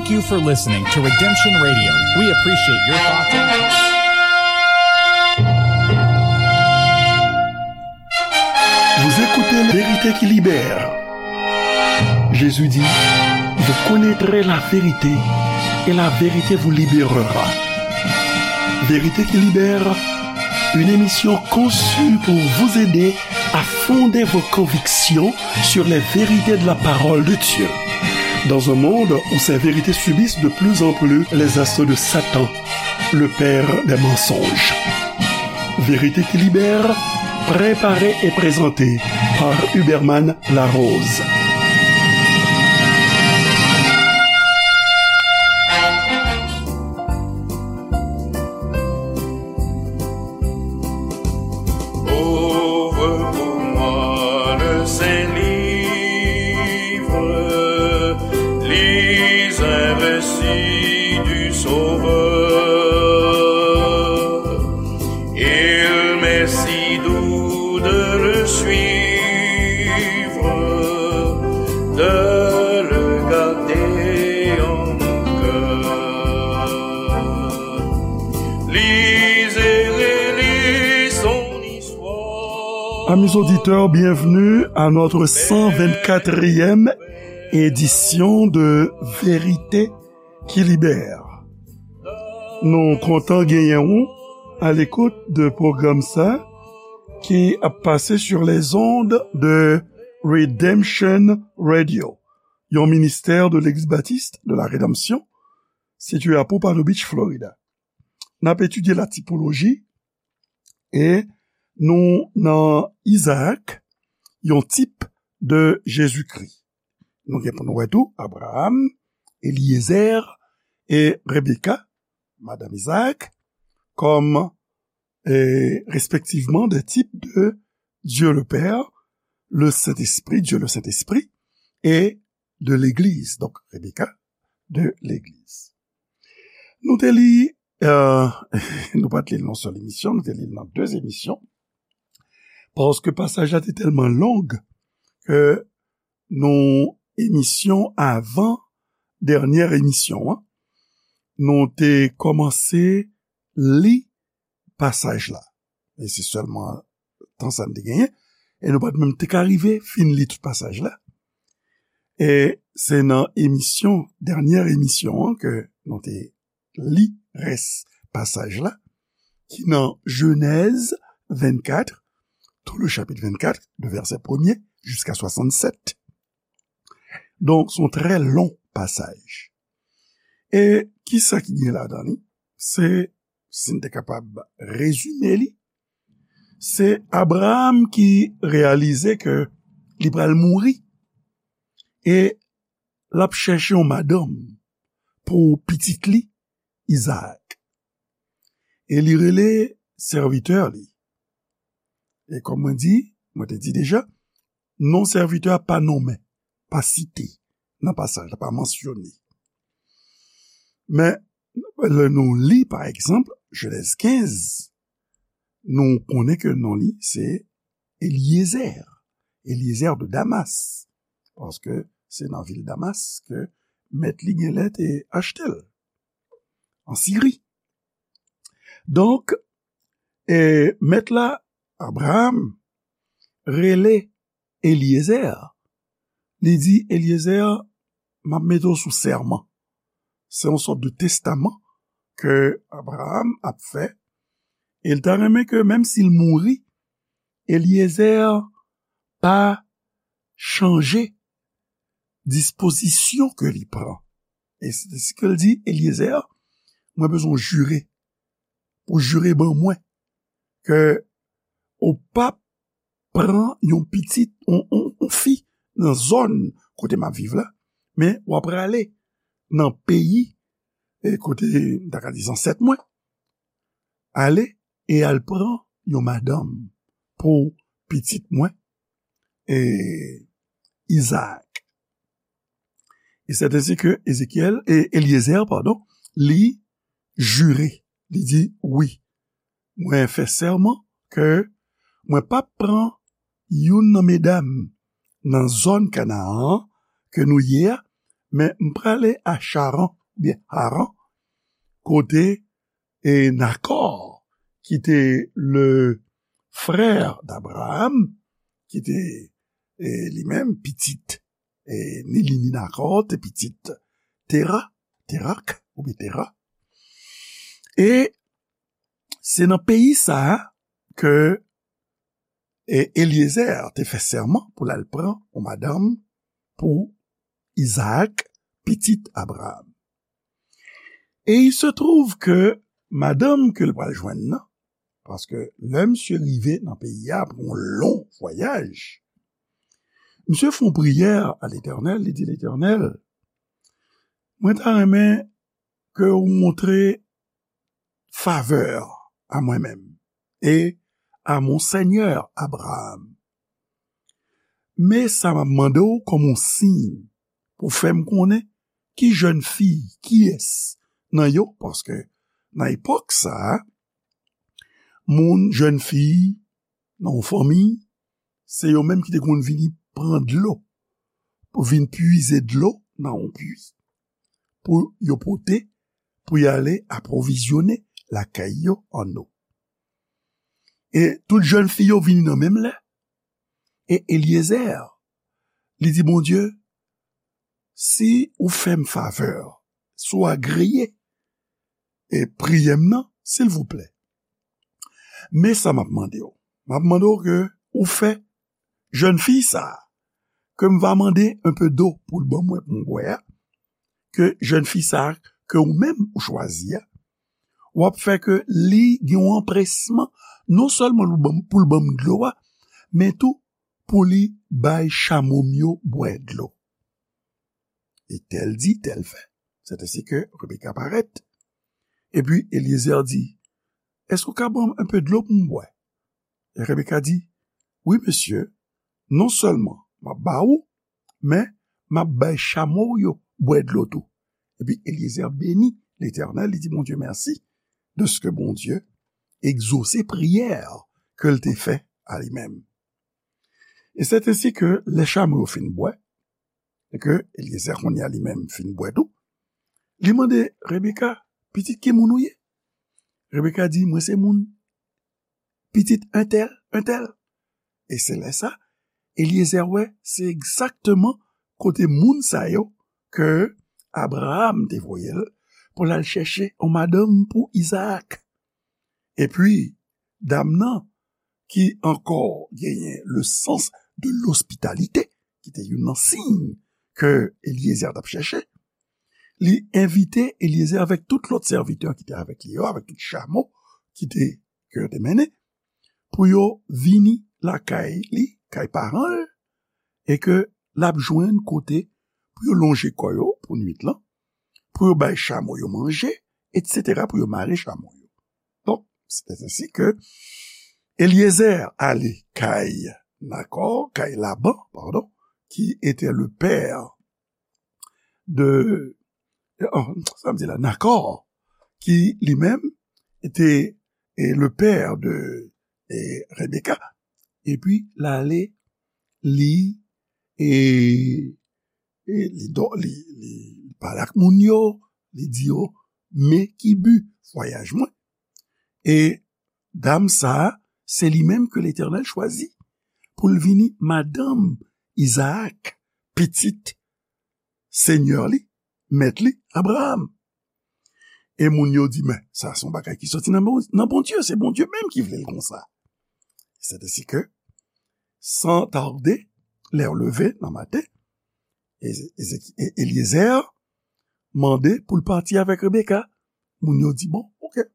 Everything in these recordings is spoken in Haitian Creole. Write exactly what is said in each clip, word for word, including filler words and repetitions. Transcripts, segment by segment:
Thank you for listening to Redemption Radio. We appreciate your thoughts and Vous écoutez La Vérité qui libère. Jésus dit, vous connaîtrez la vérité et la vérité vous libérera. Vérité qui libère, une émission conçue pour vous aider à fonder vos convictions sur les vérités de la parole de Dieu. Dans un monde où ces vérités subissent de plus en plus les assauts de Satan, le père des mensonges. Vérité qui libère, préparée et présentée par Huberman Larose. Ouvre pour moi le Saint-Livre, lis un récit du Sauveur. Il m'est si doux de le suivre, de le garder en mon cœur. Lisez et relisez son histoire. Amis auditeurs, bienvenue à notre cent vingt-quatrième édition de Vérité qui libère. Nou kontan genyen w à l'écoute de pwogram sa ki ap pase sur les ondes de Redemption Radio, yon ministè de Legliz Batis de la Redanmsyon, sitiye a Pompano Beach, Florida. N ap etidye la tipoloji e nou nan Izaak, yon tip de Jezikri. Nou gen pou nou wè tou Abraram, Eliezer e Rebeka, madanm Izaak, kòm, e, respektivman de tip de Dieu le Père, le Saint-Esprit, Dieu le Saint-Esprit, e de legliz. Donk, Rebeka, de legliz. Nou te li, e, nou pa t li l nan sèl emisyon, nou te li l nan de emisyon. Paske pasaj la te tèlman long ke nan emisyon avan dènyè emisyon an, nou te kòmanse li pasaj la. E se sèlman tan sa n te genyen. E nou pa t menm te ka rive fin li tout pasaj la. E se nan emisyon, dènyè emisyon an ke nou te li rès pasaj la, ki nan Jenèz vennkat, tout le chapitre vingt-quatre, de verset premier jusqu'à soixante-sept. Donk, se yon trè long pasaj. E kisa ki gen ladan li? Se, si n te kapab rezime li, se Abraram ki reyalize ke li pral mouri e l ap chèche yon madanm pou pitit li, Izaak. E li rele sèvitè li. E kòm mwen di, mwen te di deja, non sèvitè a pa nonmen, pa site nan pasaj la, pa mansyone. Men, lè nou li, pa egzanp, Jenèz kenz, nou konnen ke non li se Eliezer, Eliezer de Damas, paske se nan vil Damas ke mèt li genlè te achte l, an Siri. Donk, e, mèt la, Abraram, rele Eliezer. Li di, Eliezer, m ap mete w sou sèman. Se yon sòt de testaman ke Abraram ap fè. E l ta renmen ke, menm si l mouri, Eliezer pa chanje dispozisyon ke li pran. E se, se ke l di, Eliezer, mwen bezwen w jire, pou jire ban mwen, ke ou p ap pran yon pitit, yon, yon, yon fi nan zòn kote m ap viv la, men w ap prale nan peyi, e kote, m ta ka di, zansèt mwen, ale e al pran yon madanm pou pitit mwen, e Izaak. E sèten se ke Ezekyèl, e Eliezer, padon, li jire, li di, wi, mwen fè sèman ke mwen p ap pran youn nan medam nan zòn Kanaan an ke nou ye a, Men m prale a Charan, oubyen Haran, kote e Nakò, ki te le frè d'Abraham, ki te e, li menm pitit, e, ni li ni Nakò, te pitit Tera, Terak, oubyen Tera. E se nan peyi sa a ke e, Eliezer te fè sèman pou l al pran yon madanm pou Izaak, pitit Abraham. E il se trouve ke madanm ke l pral jwenn nan, paske lè misye rive nan peyi a apre yon lon vwayaj, misye fè yon priyè a Letènèl, li di, Letènèl, mwen ta renmen ke w montre favè a mwen menm e a mon sènyè Abraham. Men sa m ap mande w kòm yon siy pou fè m konnen ki jèn fi, kiyès nan yo, paske nan epòk sa a, moun, jèn fi nan yon fanmi, se yo menm ki te konn vini pran dlo, pou vin puize dlo nan yon pui, pou yo pote, pou y ale apwovizyone lakay yo ann dlo. E tout jèn fi yo vini nan menm lè. E Eliezer, li di Bondye, si ou fè m favè, si w agreye e priyè m nan, silvouplè. Men sa m ap mande w. M ap mande w ke ou fè jèn fi sa a, ke m va mande un peu d'eau pou l ban mwen pou m bwè a, ke jèn fi sa a, ke ou menm ou chwazi a, w ap fè ke li gen yon anpresman, non sèlman pou l ban m, pou l ban m dlo a, men tou pou li bay chamo m yo bwè dlo. E tèl di, tèl fè. Sèt ensi ke Rebeka parèt. Epi Eliezer di, èske w ka ban m un peu dlo pou m bwè? E Rebeka di, wi, mesye, non sèlman m ap ba ou, men m ap bay chamo w yo bwè dlo tou. Epi Eliezer beni Letènèl, li di Bondye mèsi dèske Bondye egzose priyè ke l te fè a li menm. E sèt ensi ke lè chamo yo fin bwè, e ke Eliezer kounye a li menm fin bwè tou, li mande Rebeka, pitit ki moun ou ye? Rebeka di, mwen se moun pitit entèl, entèl. E se lè sa, Eliezer wè, se egzakteman kote moun sa yo ke Abraham te voye l pou l al chèche yon madanm pou Izaak. Epi, dam nan, ki ankò genyen le sens de l'hospitalité, ki te youn nan siy ke Eliezer t ap chèche, li envite Eliezer avèk tout lòt sèvitè ki te avèk li yo, avèk tout chamo ki te, ke yo te mennen, pou yo vini lakay li, kay paran l, e ke l ap jwenn kote pou yo lonje kò yo pou nwit lan, pou yo bay chamo yo manje, etsetera, pou yo mare chamo yo. Donk, c'est ainsi que Eliezer ale kay Nakò, kay Laban, pardon, qui était le père de, oh, sa m di la, Nakò, ki li menm te e, le pè de e, Rebeka. Epi l ale, li e, e li, do, li, li, li pale ak moun yo, li di yo, men ki bi vwayaj mwen. E dam sa a, se li menm ke Letènèl chwazi pou l vini madanm Izaak, pitit senyè li, mèt li, Abraram. E moun yo di, men, sa se yon bagay ki soti nan Bon-, nan Bondye, se Bondye menm ki vle l konsa. C'est ainsi que, sans tarder, lè yo leve nan maten, Eze-, Ezeki-, E-, Eliezer mande pou l pati avèk Rebeka. Moun yo di, bon, oke.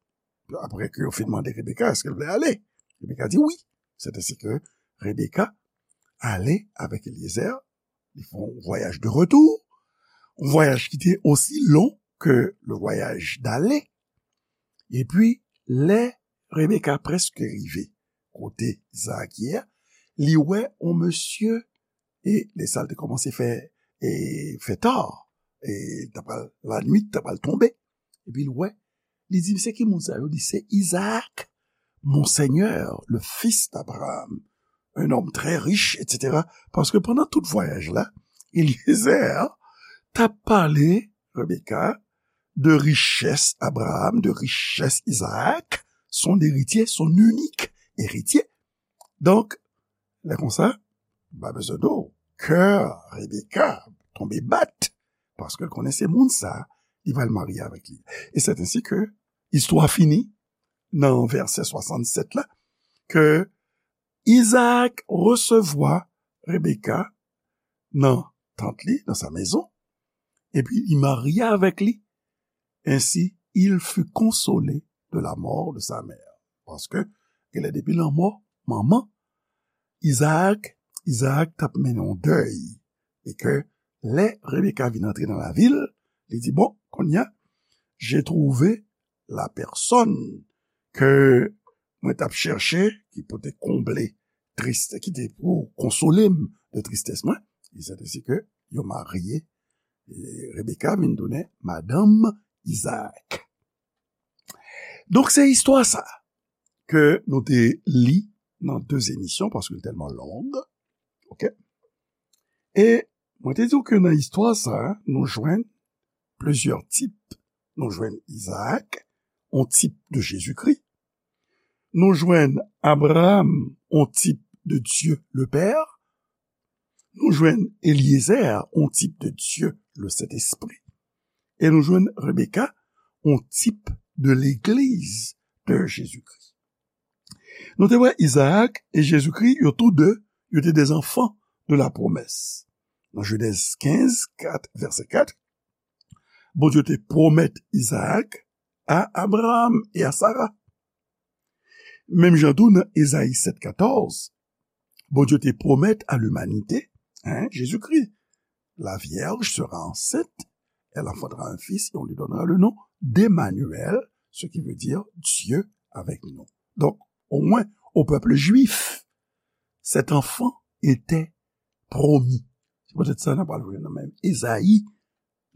Apre ke yo fin mande Rebeka, èske l vle ale? Rebeka di wi. C'est ainsi que Rebeka ale avèk Eliezer. Li fè yon vwayaj de retou, yon vwayaj ki te osi lon ke le vwayaj dale. Epi, lè Rebeka prèske rive kote Izaak ye a, li wè yon mesye, e lè sa l te kòmanse fè, e fè ta, e ta pral, lannuit ta pral tonbe. Epi l wè, li di, se ki moun sa yo? Li se Izaak, mon seigneur, le fils d'Abraham, un homme très riche, etsetera. Paske pandan tout vwayaj la, Eliezer, t ap pale, Rebeka, de richès Abraham, de richès Izaak, son eritye, son inik eritye. Donk, lè konsa, pa bezwen di w, kè Rebeka tonbe bat, paske l konnen se moun sa, li pral marye avèk li. E c'est ainsi que istwa fini nan vèsè swasannsèt la, ke Izaak resevwa Rebeka nan tant li, dans sa maison, epi li marye avèk li. Ainsi, il fut consolé de la mort de sa mère. Paske, genlè depi lanmò manman, Izaak, Izaak t ap mennen yon dèy. E ke lè Rebeka vin antre nan lavil, li di, bon, kounye a, j'ai trouvé la personne ke mwen t ap chèche, ki pou te konble tristès, ki te pou konsole m de tristès mwen. E c'est ainsi que yo marye, e Rebeka vin tounen madanm Izaak. Donk, se istwa sa ke nou te li nan de emisyon, paske l tèlman long. Oke? E mwen te di w ke nan istwa sa, nou jwenn plizyè tip. Nou jwenn Izaak, yon tip de Jezikri. Nou jwenn Abraham, yon tip de Dieu le Père. Nou jwenn Eliezer, yon tip de Dieu le Saint-Esprit. E nou jwenn Rebeka, yon tip de legliz de Jezikri. Nou te wè Izaak e Jezikri, yo tou de, yo te des enfants de la promesse. Nan Jenèz kenz, kat, vèsè kat, Bondye te pwomèt Izaak a Abraham e a Sara. Menm jan tou nan Ezayi sèt katòz, Bondye te pwomèt a limanite, hein, Jezikri, la vierge sera enceinte, elle enfantera un fils et on lui donnera le nom d'Emmanuel, ce qui veut dire Dieu avec nous. Donc, au moins, au peuple juif, cet enfant était promis. Se poutèt sa n ap al jwenn nan menm Ezayi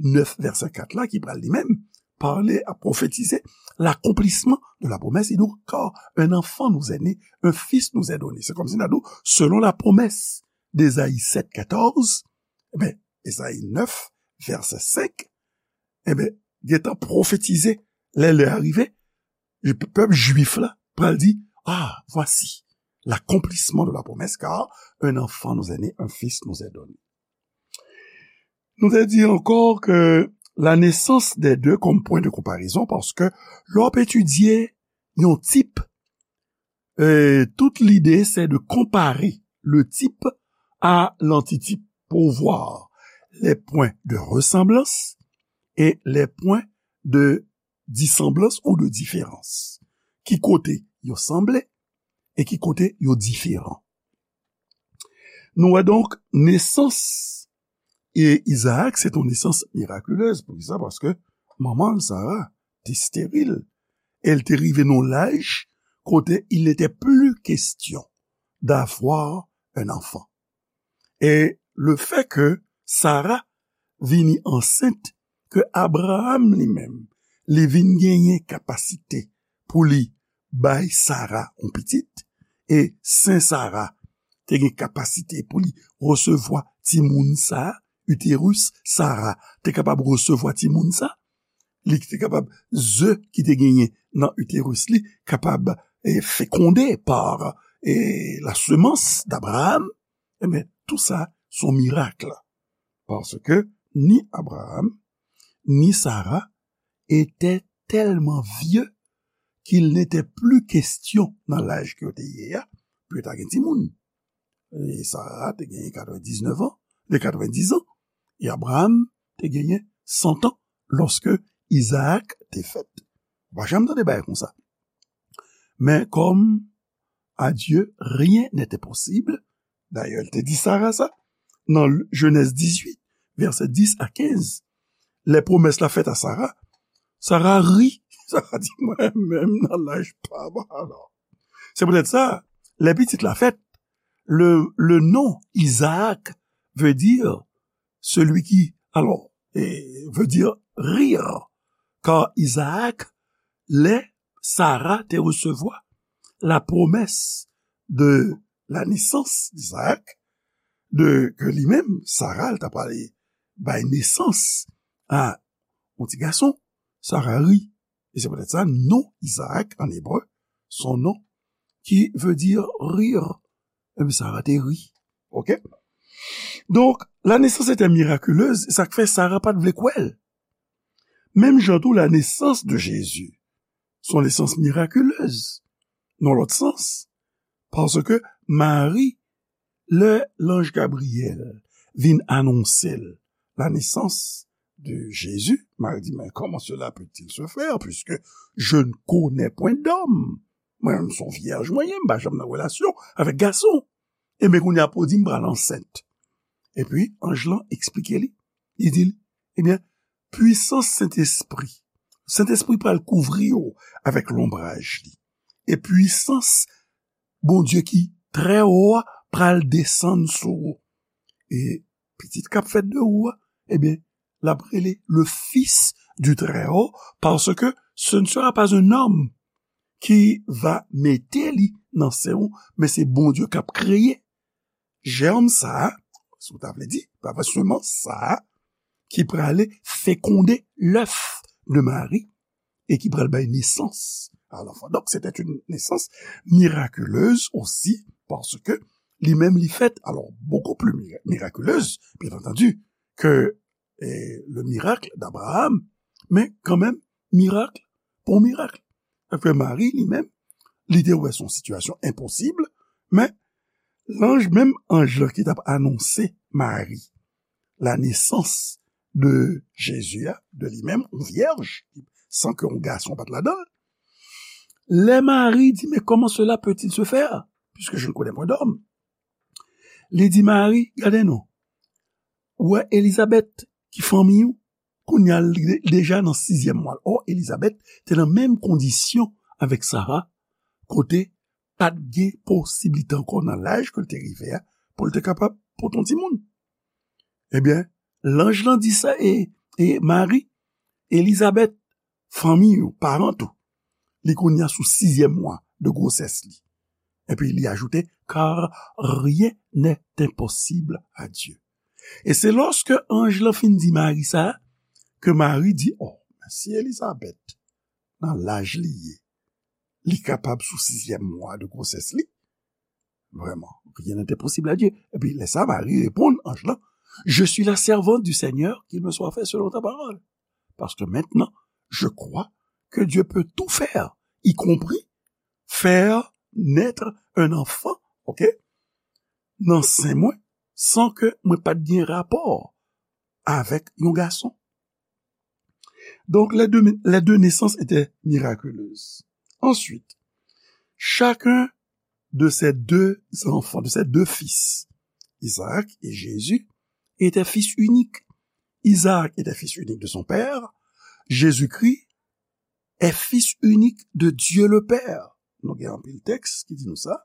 nèf, vèsè kat la, ki pral li menm pale, a pwofetize l'accomplissement de la promesse. Il dit, car un enfant nous est né, un fils nous est donné. Se kòmsi n a di w, selon la promesse d'Ezayi sèt katòz, e ben, Ezayi nèf, vèsè senk, e ben, gentan pwofetize, lè lè a rive, pèp jwif la pral di, ah, voici l'accomplissement de la promesse, car un enfant nous est né, un fils nous est donné. Nou te di ankò ke la naissance des deux comme point de comparaison, paske lè w ap etidye yon tip, e, tout lide se de konpare le type à l'antitype pour voir les points de ressemblance et les points de dissemblance ou de différence. Ki kote yo sanble e ki kote yo diferan. Nou wè donk, nesans e Izaak, se yon nesans mirakilez. Poukisa? Paske manman l, Sara, te steril. E l te rive nan laj kote il n'était plus question d'avoir un enfant. E le fait que Sara vini ansent, ke Abraham li menm, li vin genyen kapasite pou li bay Sara yon pitit, e sen Sara te gen kapasite pou li resevwa timoun sa, uterus Sara te kapab resevwa timoun sa, li te kapab, ze ki te genyen nan uterus li, kapab, e, fécondé par, e, la semence d'Abraham, e ben, tou sa, se yon mirak. Paske ni Abraham, ni Sara étaient tellement vieux qu'il n'était plus question, nan laj ke yo te ye a, pou yo ta gen timoun. E Sara te genyen katrevendisnèf an, de katrevendis an, e Abraham te genyen san an lòske Izaak te fèt. Ou pa janm tande bagay konsa. Men kòm à Dieu rien n'est impossible, dayè, l te di Sara sa, nan Jenèz dizuit, vèsè dis a kenz, lè pwomès la fèt a Sara, Sara ri. Sara di, mwen menm nan laj pa m alò. Se poutèt sa, lè pitit la fèt, le, le nom Isaac veut dire celui qui, alors, eh, veut dire rire. Car Isaac, lè Sara te resevwa la promesse de la naissance d'Isaac, de ke li menm, Sara, l ta pale bay nesans a yon ti gason, Sara ri. E se poutèt sa, non Izaak an ebre, se yon non ki vle di rire. Ebyen, Sara te ri. Oke? Donk, la naissance était miraculeuse, e sa k fè Sara pa t vle kwè l. Menm jan tou, la naissance de Jésus, se yon nesans mirakilez, nan lòt sans, paske Mari, lè lanj Gabriyèl vin anonse l la naissance de Jésus, Mari di, mais comment cela peut-il se faire, puisque je ne connais point d'homme? Mwen menm se yon vyèj mwen ye, m pa janm nan relasyon avèk gason. Ebyen, kounye a pou di m pral ansent. Epi, anj lan eksplike li. Li di l, ebyen, pwisans Sentespri. Sentespri pral kouvri w avèk lonbraj li. E pwisans Bondye ki trè wo a pral desann sou ou. E pitit k ap fèt de ou a, ebyen, l ap rele le Fils du Très-Haut, parce que ce ne sera pas un homme qui va mete li nan sen ou, men se Bondye k ap kreye jèm sa a, si w ta vle di, pa vre, semans sa a, ki prale fekonde lèf de Mari e ki pral bay nesans a lanfan. Donk, se te yon nesans mirakileuz osi, paske li menm li fèt, alò, beaucoup plus mira- miraculeuse, bien entendu, que eh, le miracle d'Abraham, men kanmenm, mirak pou mirak. Sa fè Mari, li menm, li te wè se yon sitiyasyon enposib, men lanj, menm anj lan ki t ap anonse Mari la nesans de Jezi a, de li menm, yon vyèj, san ke yon gason pa t ladan l. Lè Mari di, mais comment cela peut-il se faire, puisque je ne connais point d'homme? Li di Mari, gade non, ou wè Elizabèt ki fanmi w, kounye a l de- deja nan sizyèm mwa l. Ò, Elizabèt te nan menm kondisyon avèk Sara, kote pa t gen posiblite ankò nan laj ke l te rive a, pou l te kapab pote yon timoun. Ebyen, lanj lan di sa, e, e Mari, Elizabèt, fanmi ou, paran ou, li kounye a sou sizyèm mwa de gwosès li. Epi li ajoute, car rien n'est impossible à Dieu. E se lòske anj lan fin di Mari sa, ke Mari di, oh, men si Elizabèt, nan laj li ye, li kapab sou sizyèm mwa de gwosès li, vraiment, rien n'est impossible à Dieu. Epi lè sa, Mari reponn anj lan, je suis la servante du Seigneur, qu'il me soit fait selon ta parole. Parce que maintenant, je crois que Dieu peut tout faire, y compris faire naître un enfant, ok, nan sen mwen, san ke mwen pa t gen rapò avèk yon gason. Donc, les deux, les deux naissances étaient miraculeuses. Ensuite, chacun de ces deux enfants, de ces deux fils, Isaac et Jésus, étaient fils uniques. Isaac était fils unique de son père. Jésus-Christ est fils unique de Dieu le Père. Nou gen anpil tèks ki di nou sa.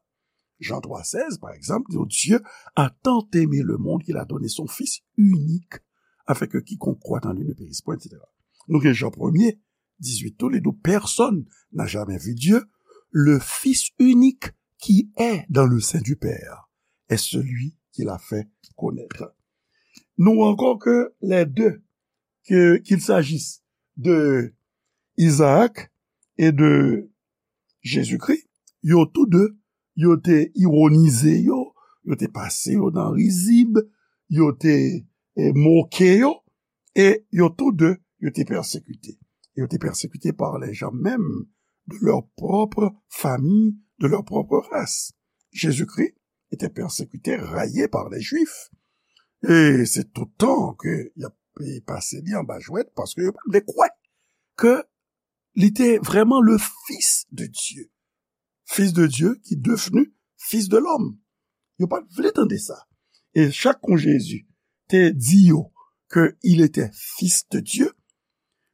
Jean trois seize, par exemple, dit, Dieu a tant aimé le monde qu'il a donné son Fils unique, afin que quiconque croit en lui ne périsse point, et cetera. Nou gen Jean premier, dix-huit tou, li di, personne n'a jamais vu Dieu, le Fils unique qui est dans le sein du Père est celui qui l'a fait connaître. Nou ankò ke les deux, que, qu'il s'agisse de Isaac et de Jésus-Christ, yo tou de, yo te ironize yo, yo te pase yo nan rizib, yo te eh, moke yo, e yo tou de, yo te pèsekite. Yo te pèsekite par les gens même de leur propre famille, de leur propre race. Jésus-Christ était persécuté, raillé par les Juifs. E se tout tan ke y ap pase li anba jwèt, paske yo pa t vle kwè ke li te vrèman le Fils de Dieu. Fils de Dieu qui devenu Fils de l'homme. Yo pa t vle tande sa. E chak kon Jezi te di yo ke il était Fils de Dieu,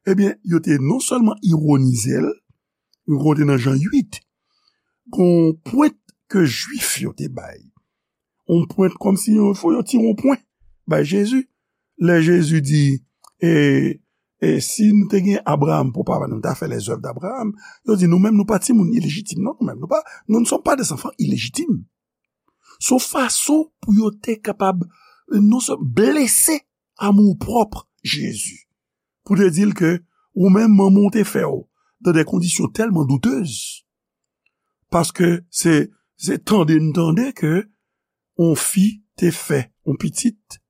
ebyen, yo te non sèlman ironize l, yo konte nan Jan uit, gon pwent ke Jwif yo te bay. Yon pwent kòmsi yo, fò yo tire yon pwen bay Jezi. Lè Jezi di, e, e si nou te gen Abraram pou papa nou, nou ta fè les œuvres d'Abraham. Yo di, nou menm, nou pa timoun ilejitim, non, nou menm, nou pa, nous ne sommes pas des enfants illégitimes. Se yon fason pou yo te kapab, non sèlman blese amour propre Jezi pou te di l ke ou menm manman w te fè w dans des conditions tellement douteuses, paske se, se tande n tande ke yon fi te fè yon pitit,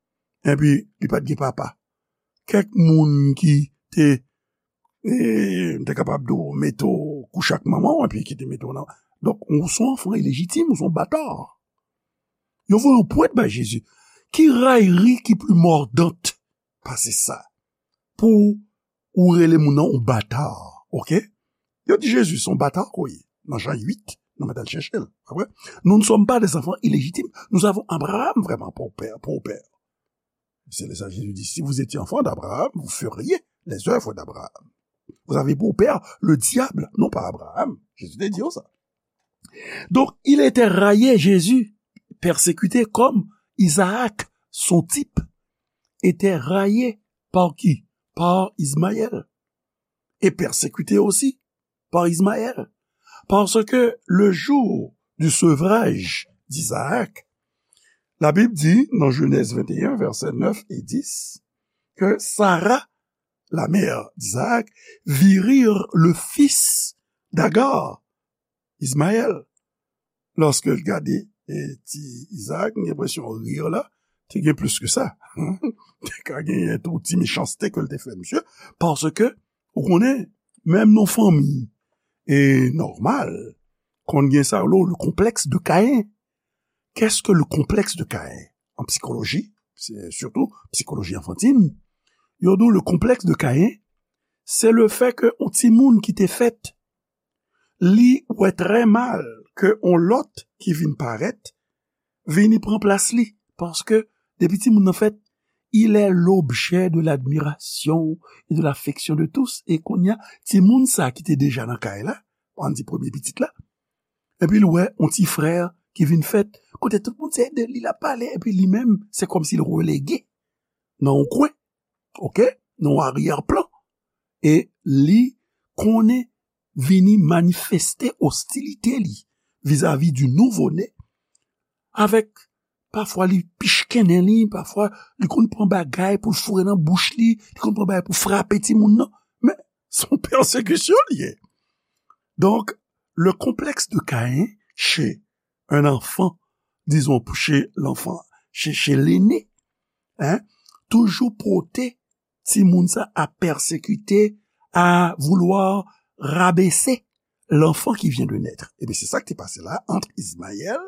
epi li pa t gen papa. Kèk moun ki te, e, te kapab di w mete w kouche ak manman w, epi ki te mete w nan. Donk, ou se yon anfan ilejitim, ou se yon bata. Yo voye yon pwent bay Jezi. Ki rayri ki pli mòdant pase sa? Pou ou rele moun nan yon bata, oke? Yo di Jezi, se yon bata ke w ye. Nan Jan uit, nou mèt al chèche l. Apre, nous ne sommes pas des enfants illégitimes, nous avons Abraham vraiment pour père, pour père. C'est ça, Jésus dit, si vous étiez enfant d'Abraham, vous feriez les œuvres d'Abraham. Vous avez pour père le diable, non pas Abraham. Jésus te di sa. Donc, il était raillé, Jésus, persécuté comme Isaac, son type, était raillé par qui? Par Ismaël. Et persécuté aussi par Ismaël. Parce que le jour du sevrage d'Isaac, la Bible dit, dans Genèse vingt et un, versets neuf et dix, que Sarah, la mère d'Isaac, vit rire le fils d'Agar, Ismaël. Lòske l gade, e, ti Isaac, m gen enpresyon rir la te gen plis ke sa. Te ka genyen tou ti mechanste ke l te fè misye, paske, ou konnen, menm nan fanmi, e, nòmal, konn gen sa yo rele le complexe de Caïn. Qu'est-ce que le complexe de Caïn? An psikoloji, se sitou psikoloji anfantin, yo di w le complexe de Caïn, se le fait que yon timoun ki te fèt, li wè trè mal ke yon lòt ki vin parèt, vini pran plas li, paske depi timoun nan fèt, il est l'objet de l'admiration et de l'affection de tous. E kounye a, timoun sa ki te deja nan kay la, ann di premye pitit la, epi l wè yon ti frè ki vin fèt, kote tout moun se de li l ap pale, epi li menm, se kòmsi l relege nan yon kwen, oke, nan yon aryè plan. E li konnen vini manifeste ostilite li vizavi di nouvo ne, avèk pafwa li pichkennen li, pafwa li konn pran bagay pou l foure nan bouch li, li konn pran bagay pou frape timoun nan. Men, se yon pèsekisyon li ye. Donc, le complexe de Caïn chez un enfant, disons, chez l'enfant, chez, chez l'aîné, hein, toujou pote timoun sa a pèsekite, a voulwa rabese l'enfant qui vient de naître. Ebyen, se sa ki te pase la ant Ismaël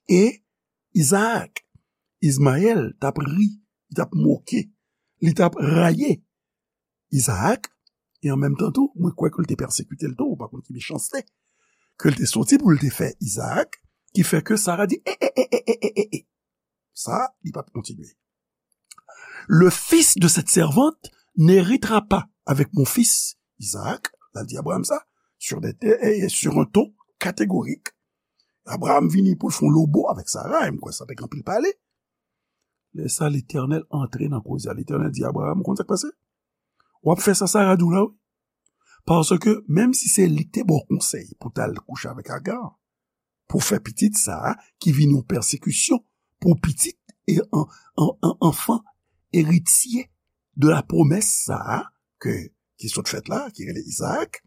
e Isaac. Ismaël t ap ri, li t ap moke, li t ap raye Isaac, e an menm tan tou, mwen kwè ke l te pèsekite l tou, ou pa konn ki mechanste ke l te soti pou l te fè Isaac, ki fè ke Sara di, e, e, e, e, e, e, e, e. Sa, li pa t kontinye. Le fils de cette servante n'héritera pas avec mon fils Isaac, l al di Abraham sa, sur des, e, e, sur un ton catégorique. Abraham vini pou l fè yon lobo avèk Sara, e m kwè sa te gen anpil pale. Lè sa, Letènèl antre nan koze a. Letènèl di Abraham, ou konn sa k pase? W ap fè sa Sara di w la, wi. Paske, menm si se li k te ba w konsèy pou w t al kouche avèk Agar, pou w fè pitit sa a, ki vin yon pèsekisyon pou pitit e an, an, an, anfan eritye de la promès sa a, ke, ki sot fèt la, ki rele Isaac,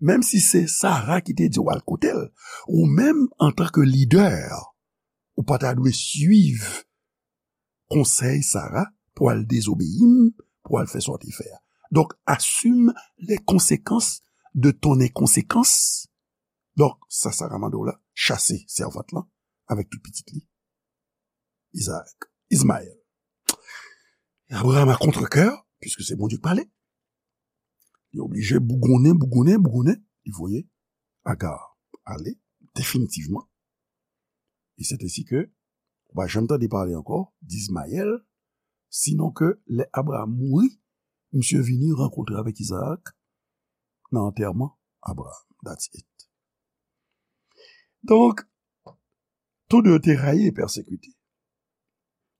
menm si se Sara ki te di w al kote l, ou menm, antanke lidè, ou pa ta dwe swiv konsèy Sara pou al dezobeyi m, pou al fè sa w te fè a. Donk, assume les conséquences de ton inconséquence. Donk, sa Sara mande w la, chase sèvant lan avèk tout pitit li, Isaac, Ismaël. Abraham a contre-cœur, puisque c'est Bondye ki pale, li oblije bougonnen, bougonnen, bougonnen, li voye Agar ale definitivman. E c'est ainsi que ou pa janm tande pale ankò d'Ismaël, sinon ke lè Abraham mouri, misye vini rankontre avèk Isaac nan antèman Abraham. That's it. Donk, tou de yo te rayi e pèsekite.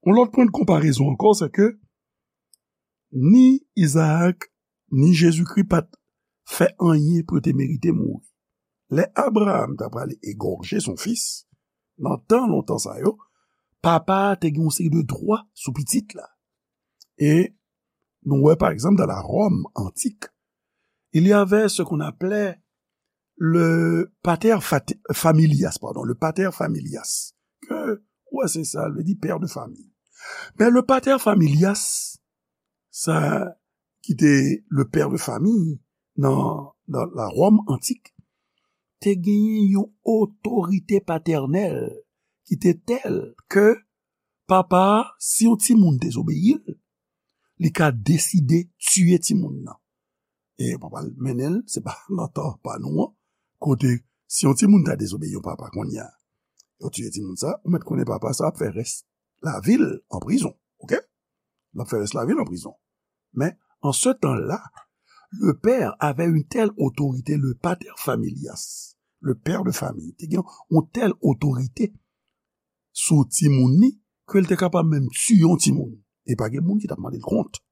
Yon lòt pwen de konparezon ankò, se ke ni Isaac, ni Jezikri pa t fè anyen pou yo te merite mouri. Lè Abraham ta prale egòje son fis, nan tan lontan sa yo, papa a te gen yon seri de dwa sou pitit la. E nou wè, pa egzanp, dans la Rome antique, il y avait ce qu'on appelait le pater fat- familias, pardon, le pater familias. Ke, wè, se sa, l vle di pè de fami. Men le pater familias, sa ki te le pè de fami nan, nan la Ròm antik, te genyen yon otorite patènèl ki te tèl ke papa a, si yon timoun dezobeyi l, li ka deside tiye timoun nan. E papa l mennen l, se pa nan tan pa nou an, kote si yon timoun ta dezobeyi yon papa kounye a, yo tiye timoun sa, ou mèt konnen papa sa ap fè rès lavi l an prizon, oke? L ap fè rès lavi l an prizon. Men, an se tan la, le père avait une telle autorité, le pater familias, le père de famille, te gen yon tèl otorite sou timoun ni, ke l te kapab menm tiye yon timoun. E pa gen moun ki t ap mande l kont.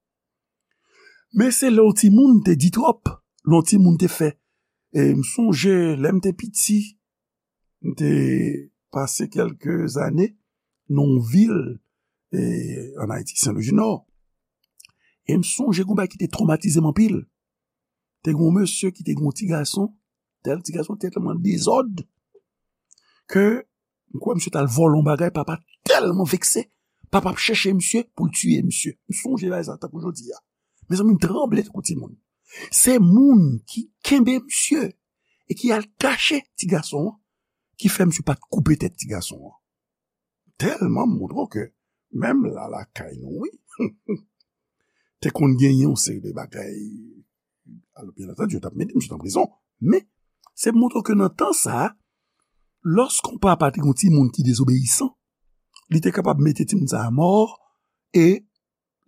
Men se lè yon timoun te di twòp, lè yon timoun te fè. E m sonje, lè m te piti, m te pase kèlke zane nan yon vil, e, ann Ayiti, Sen Lwi di Nò. E m sonje gon bagay ki te twomatize m anpil. Te gon mesye ki te gon ti gason, tèl ti gason tèlman dezòd, ke m kwè misye t al vòlè yon bagay, papa tèlman vekse, papa ap chèche misye pou l tiye misye. M sonje bagay sa tankou jodi a. Mezanmi, m tranble tankou timoun. Se moun ki kenbe misye e ki al kache ti gason an, ki fè misye pa t koupe tèt ti gason an. Tèlman m montre w ke menm la lakay nou, wi, te konn genyen yon seri de bagay. Alò, byen antandi, yo t ap mete misye nan prizon. Men, se montre w ke nan tan sa a, lòske yon papa te gen yon timoun ki dezobeyisan, li te kapab mete timoun sa a mò e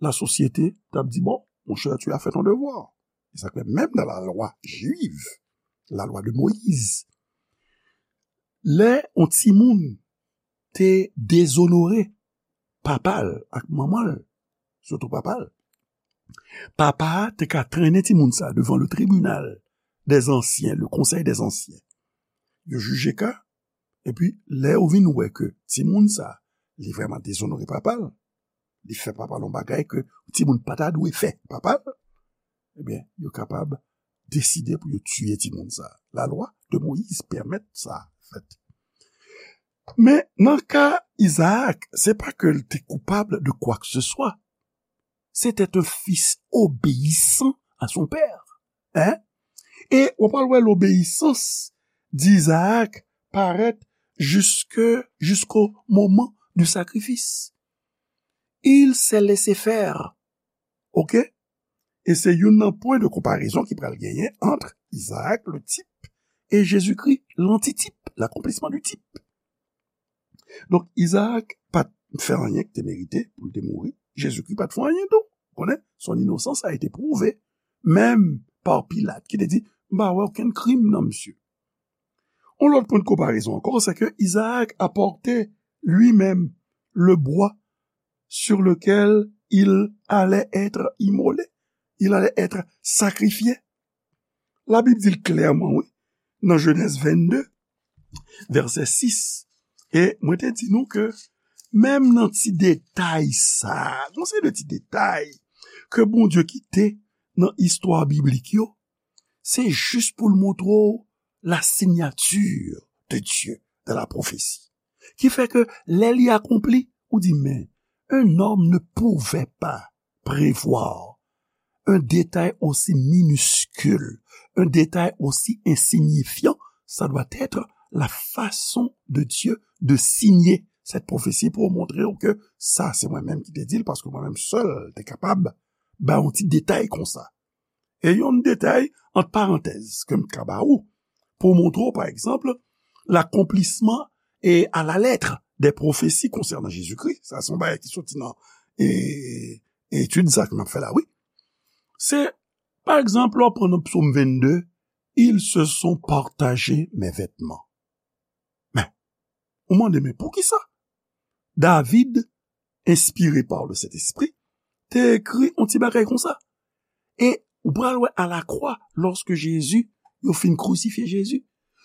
lasosyete t ap di, bon, mon cher, tu as fait ton devoir. E sa k fè menm nan lalwa jiv, lalwa de Moyiz, lè yon timoun te dezonore papa l ak manman l, sitou papa l, papa a te ka trennen timoun sa devan le tribunal des anciens, le conseil des anciens. Yo jije ka, epi lè yo vin wè ke timoun sa, li vrèman dezonore papa l, li fè papa l yon bagay ke timoun pa ta dwe fè papa l, ebyen, yo kapab deside pou yo tiye timoun sa. Lalwa de Moyiz pèmèt sa fèt. Men nan ka Izaak, se pa ke l te koupab de kwa ke se swa. C'était un fils obéissant à son père. Hein? E w pral wè lobeyisans d'Izaak parèt jusque, jusqu'au moment du sacrifice. Il s'est laissé faire. Oke? E se youn nan pwen de konparezon ki pral genyen ant Izaak, le type, e Jezikri, lantitip, l'accomplissement du type. Donk, Izaak pa t fè anyen ki te merite pou l te mouri. Jezikri pa t fè anyen tou. Konnen, son inosans a ete pwouve. Menm pa Pilat, ki te di, m pa wè okenn krim nan misye. On lòt pwen de konparezon ankò, se ke Izaak a pòte li menm le bwa sur lequel il allait être immolé, il allait être sacrifié. Labib di l klèman, wi, nan Jenèz vennde, vèsè sis. E mwen te di nou ke menm nan ti detay sa, gon seri de ti detay ke Bondye kite nan istwa biblik yo, se jis pou l montre w la signature de Dieu dans la prophétie. Ki fè ke lè li akonpli, ou di, men, un homme ne pouvait pas prévoir un détail aussi minuscule, un détail aussi insignifiant, ça doit être la façon de Dieu de signer cette prophétie pou montre w ke sa se mwen menm ki te di l, paske mwen menm sèl te kapab ba yon ti detay konsa. E yon detay, ant parantèz, ke m ka ba ou, pou montre w, pa egzanp, l'accomplissement et à la lettre des prophéties concernant Jésus-Christ. Sa se yon bagay ki soti nan, e, etid sa ke m ap fè la, wi. Se, pa egzanp, lè w pran nan Psaume vennde, ils se sont partagé mes vêtements. Men, ou mande, men poukisa David, inspiré par le Saint-Esprit, te ekri yon ti bagay konsa? E ou pral wè a la kwa, lòske Jezi, yo fin krisifye Jezi,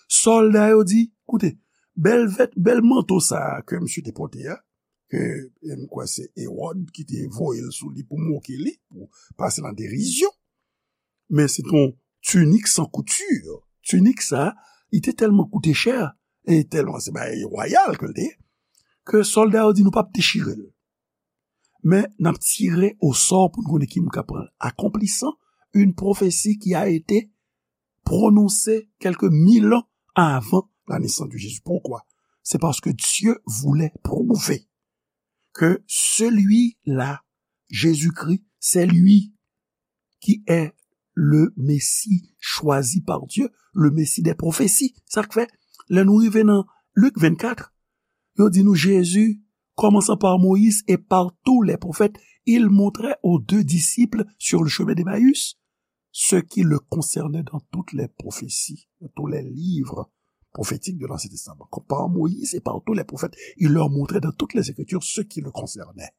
sòlda yo di, koute, bèl vèt, bèl manto sa a ke misye te pote a, ke, e m kwè se Ewòd ki te voye l sou li pou moke li, pou pase l an derizyon. Men se t on tinik san kouti. Tinik sa, li te tèlman koute chè, e tèlman se bagay wayal ke l te ye, ke sòlda yo di nou p ap dechire l. Men n ap tire osò pou n konnen ki moun k ap pran l. Accomplissant une prophétie qui a été prononcée quelques mille ans avant la naissance de Jésus. Pourquoi? C'est parce que Dieu voulait prouver que celui-là, Jésus-Christ, c'est lui qui est le Messie choisi par Dieu, le Messie des prophéties. Sa k fè, lè nou rive nan Lik vennkat, yo di nou Jezi, commençant par Moïse et par tous les prophètes, il montrait aux deux disciples sur le chemin d'Emmaüs ce qui le concernait dans toutes les prophéties, dans tous les livres prophétiques de l'Ancien Testament. Comme par Moïse et par tous les prophètes, il leur montrait dans toutes les Écritures ce qui le concernait.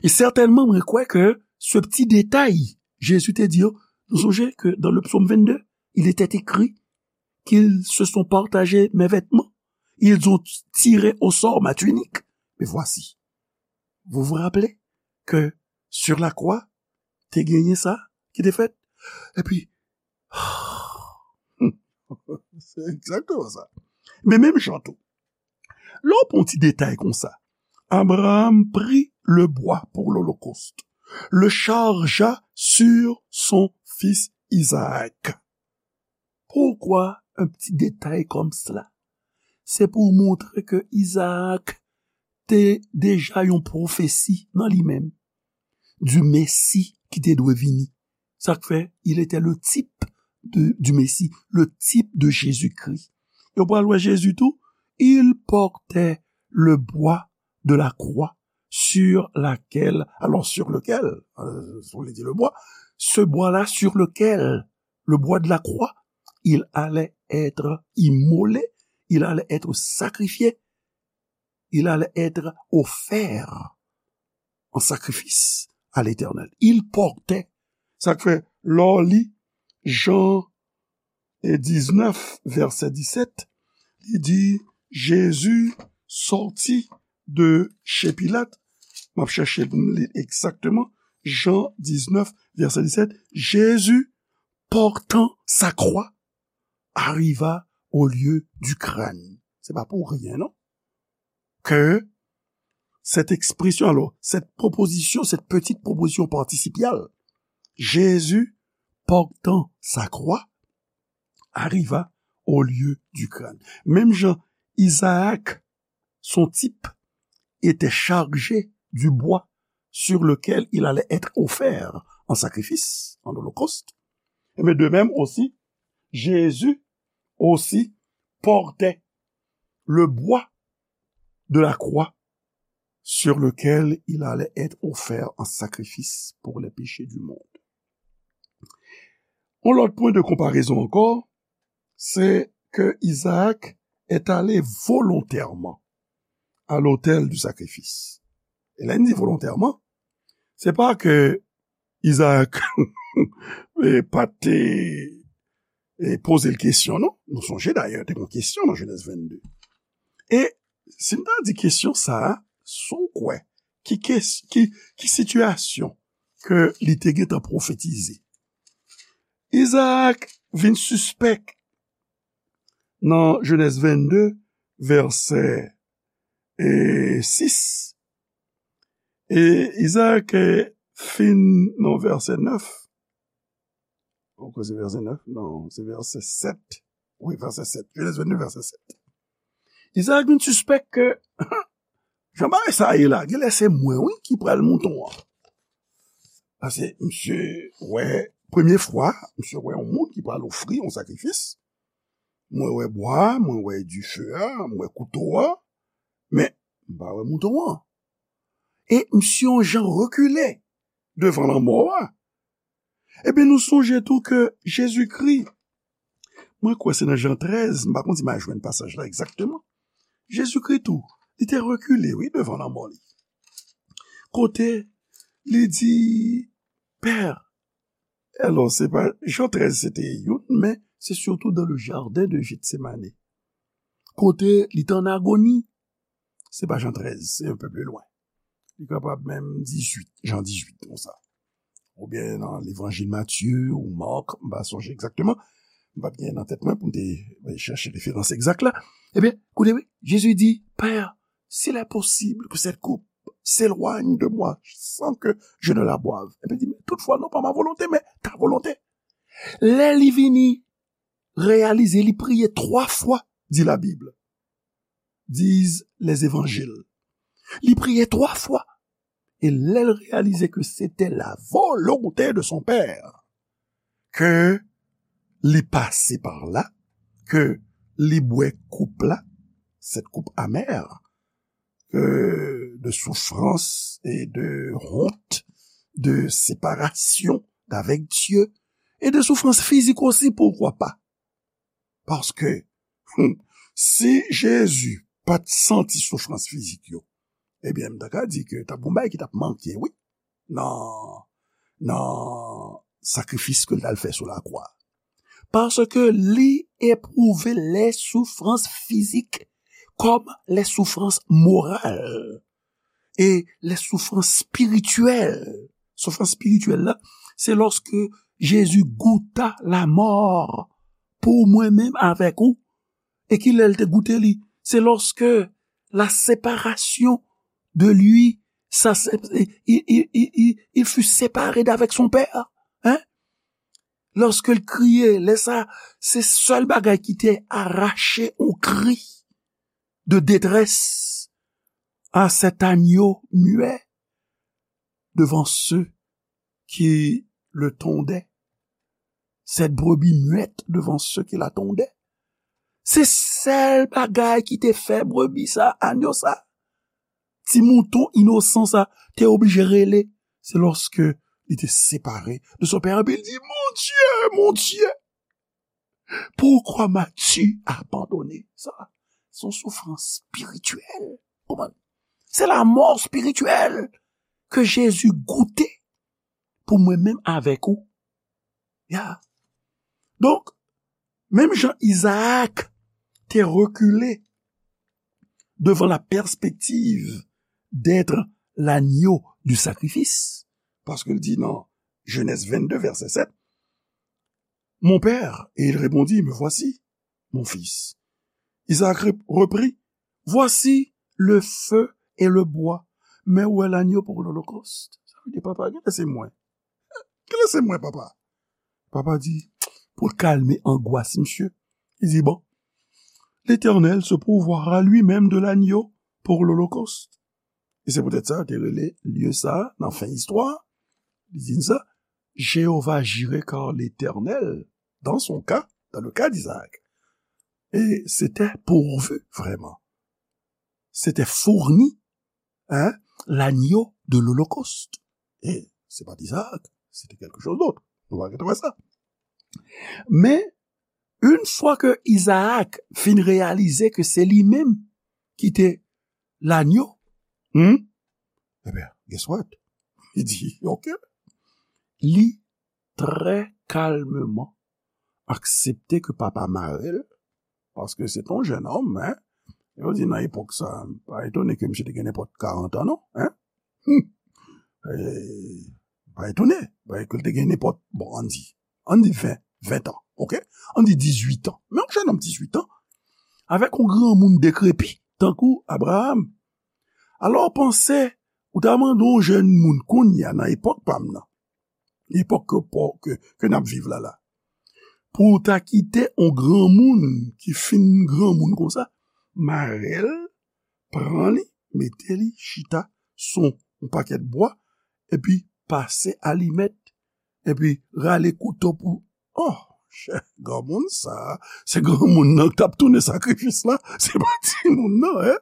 E sètènman, mwen kwè ke se ti detay, Jezi te di yo, nou sonje ke dans le psaume vingt-deux, il était écrit qu'ils se sont partagés mes vêtements, ils ont tiré au sort ma tunique. Mais voici, vous vous rappelez que sur la croix, te genyen sa ki te fèt? Epi, se egzakteman sa. Men menm jan tou, lè w pran ti detay konsa, Abraham prit le bois pour l'holocauste, le chargea sur son fils Isaac. Pourquoi un petit détail comme cela? Se pou montre ke Izaak te deja yon pwofesi nan li menm, du Messie ki te dwe vini. Sa k fè, il était le type de, du Messie, le type de Jésus-Christ. Yo pral wè Jezi tou, il portait le bois de la croix sur laquelle, alors sur lequel, euh, on dit le bois, ce bois-là sur lequel, le bois de la croix, il allait être immolé, il allait être sacrifié, il allait être offert en sacrifice à l'Éternel. Il portait. Sa k fè, lè w li Jan e diznèf, vèsè disèt, li di, Jésus sortit de chez Pilate. M ap chèche pou m li egzakteman. Jan diznèf, vèsè disèt, Jésus, portant sa croix, arriva au lieu du crâne. Se pa pou ryen, non. Que cette expression, alors, cette proposition, cette petite proposition participiale, Jésus portant sa croix arriva au lieu du crâne. Menm jan Izaak, son type, était chargé du bois sur lequel il allait être offert en sacrifice, en holocauste, et bien de même aussi, Jésus aussi portait le bois de la croix sur lequel il allait être offert en sacrifice pour les péchés du monde. On lòt pwen de konparezon ankò, se ke Izaak est allé volontairement à l'autel du sacrifice. E lè n di volontèman, se pa ke Izaak e, pa te e, poze l kesyon, non. Nou sonje dayè, te gen kesyon nan Jenèz vennde. E si n ta di kesyon sa a, si w kwè, ki, kes, ki, ki sitiyasyon ke li te gentan pwofetize? Izaak vin sispèk nan Jenèz vennde, vèsè e, sis. E Izaak e, fin nan vèsè nèf. Ou kwè se vèsè nèf? Non, se vèsè sèt. Wi, vèsè sèt. Jenèz vennde, vèsè sèt. Izaak vin sispèk ke jan bagay sa ye la, genlè se mwen, wi, ki pral mouton an. Paske misye wè, premye fwa, misye wè yon moun ki pral ofri yon sakrifis. Mwen wè bwa, mwen wè dife a, mwen wè kouto a, men m pa wè mouton an. E misye yon jan rekile devan lanmò a. Ebyen, nou sonje tou ke Jezikri, mwen kwè se nan Jan trèz, m pa konn si m a jwenn pasaj la egzakteman. Jezikri tou, li te rekile, wi, devan lanmò li. Kote li di, Pè, alò, se pa, Jan trèz se te youn, men se sitou dans le jardin de Gethsemane. Kote li te an agoni. se pa Jan trèz, se un peu plus loin. Li kapab menm dizuit, Jan dizuit, konsa. Oubyen nan levanjil Matye ou Mak, m pa sonje egzakteman. M pa t gen nan tèt mwen pou m te, eh, chèche referans egzak la. Ebyen, koute wi, Jezi di, Père, s'il est possible que cette coupe s'éloigne de moi sans que je ne la boive. Ebyen, di, men toutfwa, non pas ma volonté, mais ta volonté. Lè li vini reyalize, li priye twa fwa, di la Bible, disent les évangiles. Li priye twa fwa. E lè l reyalize ke se te la volonte de son pè, ke li pase pa la, ke li bwè koup la, cette coupe amère, que de souffrance et de honte, de séparation d'avec Dieu, et de souffrance physique aussi, pourquoi pas? Paske, hmm, si Jezi pa t santi soufrans fizik yo, ebyen, m ta ka di ke t ap gon bagay ki t ap manke, wi, nan, nan sakrifis ke l t al fè sou lakwa. Paske li epwouve les souffrances physiques comme les souffrances morales et les souffrances spirituelles. Soufrans spirityèl la, se lòske Jezi gouta lamò pou mwen menm avèk ou. E ki lè l te goute li? Se lorsque la séparation de lui, ça, c'est- il, il, il, il, il fut séparé d'avec son père. Hein? Lorsque l kriye, lè sa, se sèl bagay ki te arache yon kri de détresse à cet agneau muet devant ceux qui le tondaient, cette brebis muette devant ceux qui la tondaient. Se sèl bagay ki te fè brebi sa, anyo sa, ti mouton inosan sa, te oblije rele. Se lòske li te separe de son pè, epi li di, Mon Dieu, mon Dieu, pourquoi m'as-tu abandonné? Sa, se yon soufrans espirityèl. Konprann? Se lamò espirityèl ke Jezi goute pou mwen menm avèk ou. Ya. Donk, menm jan Izaak te rekile devan la perspective d'être l'agneau du sacrifice, paske l di nan Genèse vingt-deux, verset sept, Mon père, et il répondit, Me voici, mon fils. Isaac rep- reprit, Voici le feu et le bois, mais où est l'agneau pour l'holocauste? Sa vle di, papa, kilè se mwen? Kilè se mwen, papa? Papa di, pou l kalme angwas misye, li di, Bon, l'Éternel se pourvoira lui-même de l'agneau pour l'holocauste. E se poutèt sa, yo te rele lye sa, nan fen istwa, li di sa, Jéhovah Jiré, car l'Éternel, dans son cas, dans le cas d'Isaac, et c'était pourvu, vraiment. C'était fourni, hein, l'agneau de l'holocauste. E se pa t Izaak, se te kèlke choz dòt. Nou va retwouve sa. Men, yon fwa ke Izaak fin reyalize ke se li menm ki te lanyo, hmm? Ebyen, guess what? Li di, OK. Li trè kalmeman aksepte ke papa mare l, paske se t on jennonm, hein? Yo di nan epòk sa, pa etone ke misye te gen nenpòt karant an, non, hein? Hmm. E, pa etone, paske l te gen nenpòt, bon, ann di, ann di ven, ven an, OK? Ann di dizuit an. Men yon jennonm dizuit an, avèk yon granmoun dekrepi, tankou Abraram. Alò, panse, ou ta mande yon jèn moun kounye a nan epòk pa m nan, epòk ke, ke, ke n ap viv la la, pou w ta kite yon granmoun ki fin granmoun konsa, mare l, pran li, mete li chita sou yon pakèt bwa, epi pase alimèt, epi rale kouto pou, oh, chè, granmoun sa, se granmoun nan k t ap tounen sakrifis la, se pa timoun nan, hein?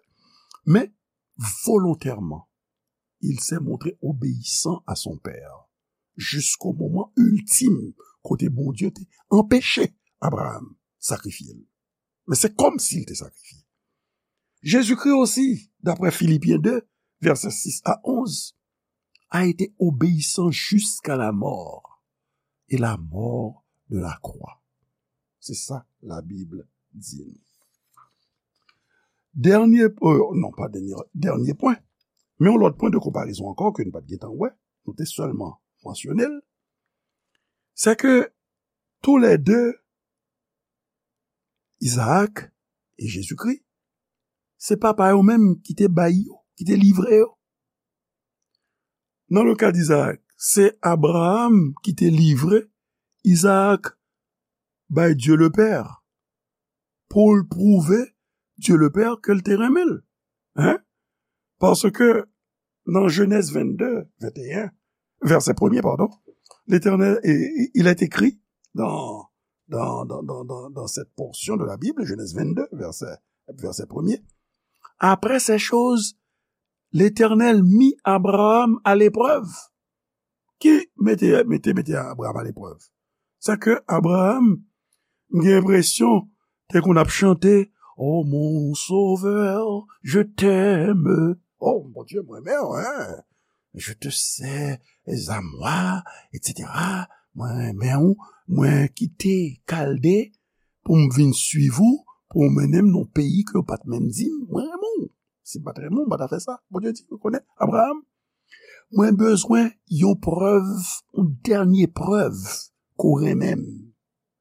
Men, volontèman, il s'est montré obéissant à son père, jusqu'au moment ultime, kote Bondye te anpeche Abraram sakrifye l. Men se kòmsi l te sakrifye. Jezikri osi, daprè Filipyen de, vèsè sis a onz, a été obéissant jusqu'à la mort, et la mort de la croix. Se sa Labib di nou. Dènye, euh, non, pa dènye, dènye pwen, men yon lòt pwen de konparezon ankò ke nou pa t gentan wè, nou te sèlman mansyone l, se ke toulède, Izaak e Jezikri, se papa yo menm ki te bay yo, ki te livre yo. Nan le ka d Izaak, se Abraram ki te livre Izaak bay Dye le Pè pou l pwouve Dye le Pè ke l te renmen l. Hein? Paske nan Jenèz vennde, venteyen, vèsè premye, pardon, Letènèl, e, e, il est écrit dans, dans, dans, dans, dans, dans cette portion de la Bible, Genèse vingt-deux, verset, verset premier, après ces choses, L'Éternel mit Abraham à l'épreuve. Ki mete, mete, mete Abraham aleprèv? Sa ke Abraham, m gen enpresyon, te konn ap chante, Oh mon sauveur, je t'aime. Oh Bondye, mwen renmen w, hein. Je te sais à moi, et cetera. Mwen renmen w, mwen kite Kalde pou m vin swiv ou, pou w mennen m nan peyi ke w pa t menm di m, mwen renmen w. Si m pa t renmen w, m pa ta fè sa. Bondye di, ou konnen, Abraham, mwen bezwen yon prèv, yon dènye prèv ke w renmen m.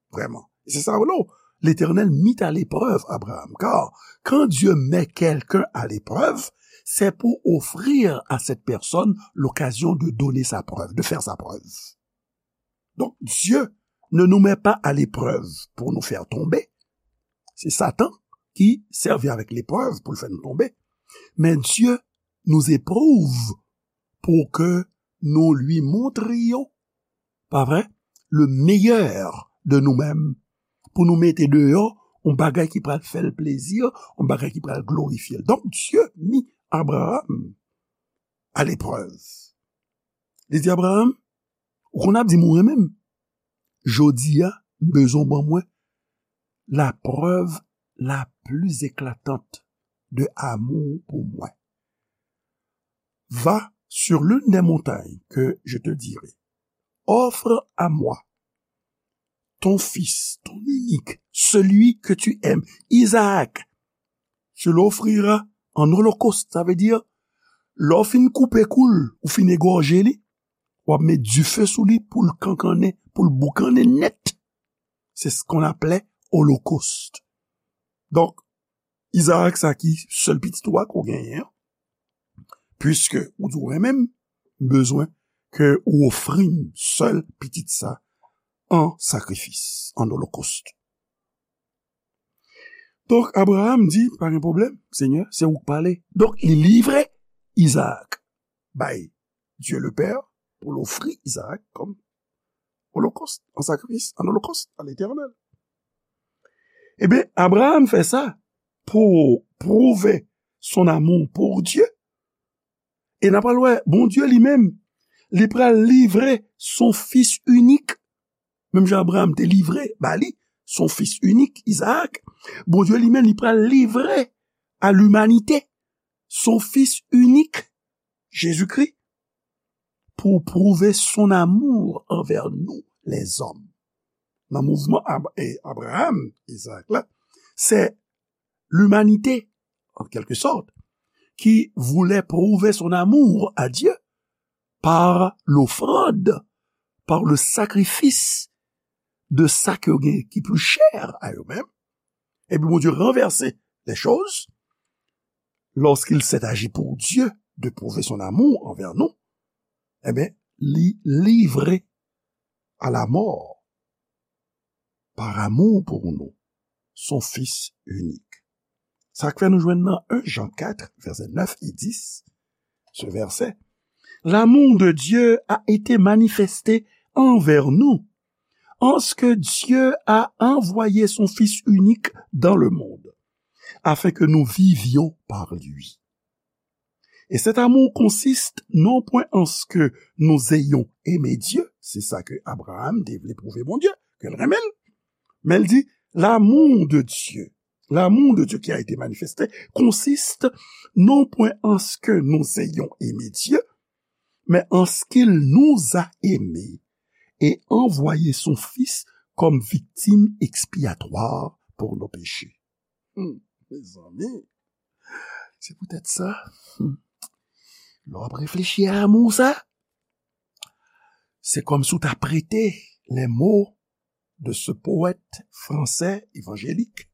Vraiment. Et c'est ça, non? L'Éternel mit à l'épreuve Abraham, car quand Dieu met quelqu'un à l'épreuve, c'est pour offrir à cette personne l'occasion de donner sa preuve, de faire sa preuve. Donc, Dieu ne nous met pas à l'épreuve pour nous faire tomber. C'est Satan qui servit avec l'épreuve pour le faire nous tomber. Mais Dieu nous éprouve pour que nous lui montrions, pa vre, le meilleur de nous-mêmes, pou nou mete deyò yon bagay ki pral fè l plezi, yon bagay ki pral glorifye l. Donk, Dye mi Abraham a leprèv. Li di Abraham, ou konn ap di m ou renmen m. Jodi a, m bezwen w ban mwen la preuve la plus éclatante de amour pour moi. Va sur l'une des montagnes que je te dirai. Offre à moi ton fils, ton unique, celui que tu aimes, Isaac. Tu l'offriras en holocauste. Sa vle di, lè w fin koupe kou l, ou fin egòje li, w ap met dife sou li pou l kankannen, pou l boukannen nèt. C'est ce qu'on appelait holocauste. Donk, Izaak sa ki sèl pitit ou a ke w genyen an, puiske ou di w renmen m, m bezwen ke ou ofri m sèl pitit sa an sakrifis, an holocauste. Donk, Abraham di, pa gen pwoblèm, Senyè, se ou k pale. Donk, li livre Izaak bay Dieu le Père pou l ofri Izaak kòm holocauste, an sakrifis, an holocauste à l'Éternel. Ebyen, Abraham fè sa pou prouve son amour pour Dieu. E n ap pral wè, Bondye li menm, li pral livre son fis inik, menm jan Abraham te livre ba li son fis inik, Izaak, Bondye li menm, li pral livre à l'humanité son fis inik, Jezikri, pou prouve son amour envers nous, les hommes. Nan mouvman Ab-, e, Abraham, Izaak la, se l'humanité, en quelque sorte, qui voulait prouver son amour à Dieu par l'offrande, par le sacrifice de sa ke yo gen ki pli chè a yo menm. Epi Bondye ranvèse les choses, lorsqu'il s'est agi pour Dieu de prouver son amour envers nous, ebyen, li livre à la mort par amour pour nous, son Fils unique. Sa k fè nou jwenn nan un Jean quatre, verset neuf et dix, ce verset, l'amour de Dieu a été manifesté envers nous, en ce que Dieu a envoyé son Fils unique dans le monde, afin que nous vivions par lui. Et cet amour consiste non point en ce que nous ayons aimé Dieu, se sa ke Abraham te vle pwouve Bondye, ke l renmen l, men l di, l'amour de Dieu, l'amour de Dieu qui a été manifesté consiste non point en ce que nous ayons aimé Dieu, mais en ce qu'il nous a aimés et envoyé son Fils comme victime expiatoire pour nos péchés. Hmm, mezanmi. Se poutèt sa, hmm, lè w ap reflechi a lanmou sa, se kòmsi w ta prete les mots de ce poète français évangélique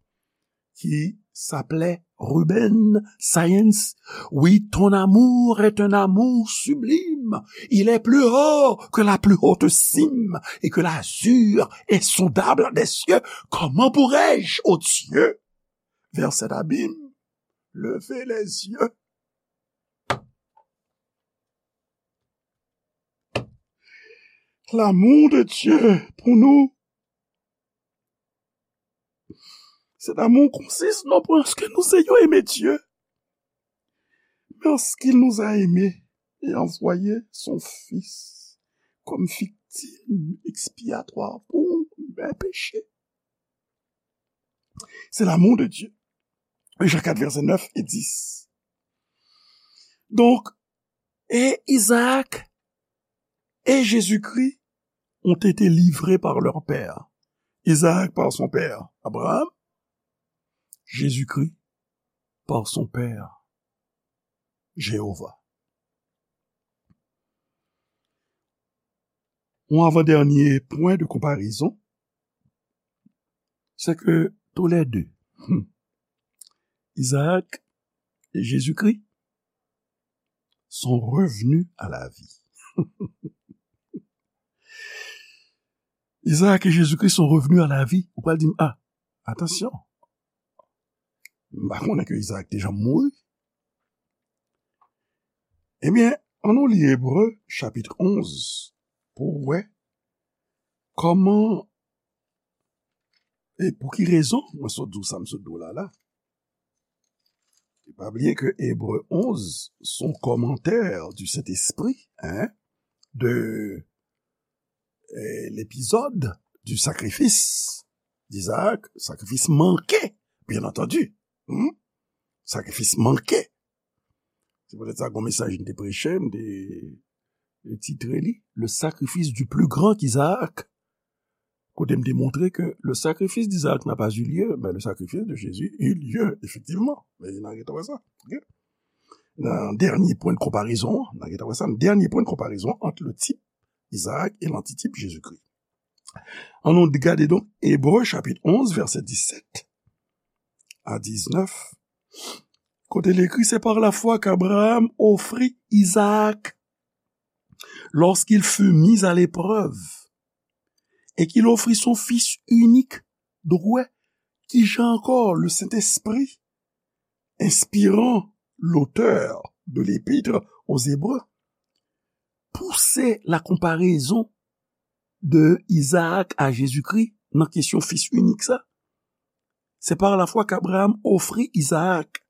qui s'appelait Ruben Saenz. Oui, ton amour est un amour sublime. Il est plus haut que la plus haute cime et que l'azur insondable des cieux. Comment pourrais-je, ô Dieu, vers cet abîme, lever les yeux? L'amour de Dieu pour nous, cet amour consiste non pas en ce que nous ayons aimé Dieu, mais en ce qu'il nous a aimés et envoyé son Fils comme victime expiatoire pour mes péchés. C'est l'amour de Dieu. Jean quatre, versets neuf et dix. Donc, et Isaac et Jésus-Christ ont été livrés par leur père. Isaac par son père Abraham, Jésus-Christ par son père Jéhovah. Un avant-dernier point de comparaison, c'est que tous les deux, hmm, Isaac et Jésus-Christ, sont revenus à la vie. Isaac et Jésus-Christ sont revenus à la vie. Ou pral di m, ah, atansyon. M pa konnen ke Isaac te janm mouri. Ebyen, ann nou li Ebre chapit onz pou w wè kòman e pou ki rezon mwen sot di w sa m sot di w la la. E pa bliye ke Ebre onz se yon kòmantè du Saint-Esprit, hein, de eh, l'épisode du sacrifice d'Isaac, sakrifis manke, bien entendu. Hmm? Sakrifis manke. Se poutèt sa, gon mesaj m te preche, m te, te titre li, Le sacrifice du plus grand qu'Isaac. Kote m te montre ke le sacrifice d'Isaac n'a pas eu lieu, mais le sacrifice de Jésus eut lieu, effectivement. Men n a gentan wè sa. Ok? Nan dènye pwen de konparezon, n a gentan wè sa, nan dènye pwen de konparezon ant le tip Isaac et l'antitip Jésus-Christ. Ann nou gade donk Ebre chapit onz, vèsè disèt a diznèf, kote l ekri, c'est par la foi qu'Abraham offrit Isaac lorsqu'il fut mis à l'épreuve et qu'il offrit son fils unique. Donk, ou wè, kijan ankò le Saint-Esprit, inspirant l'auteur de l'Épître aux Hébreux, pouse la comparaison de Isaac à Jésus-Christ nan kesyon fis inik sa. C'est par la foi qu'Abraham offrit Isaac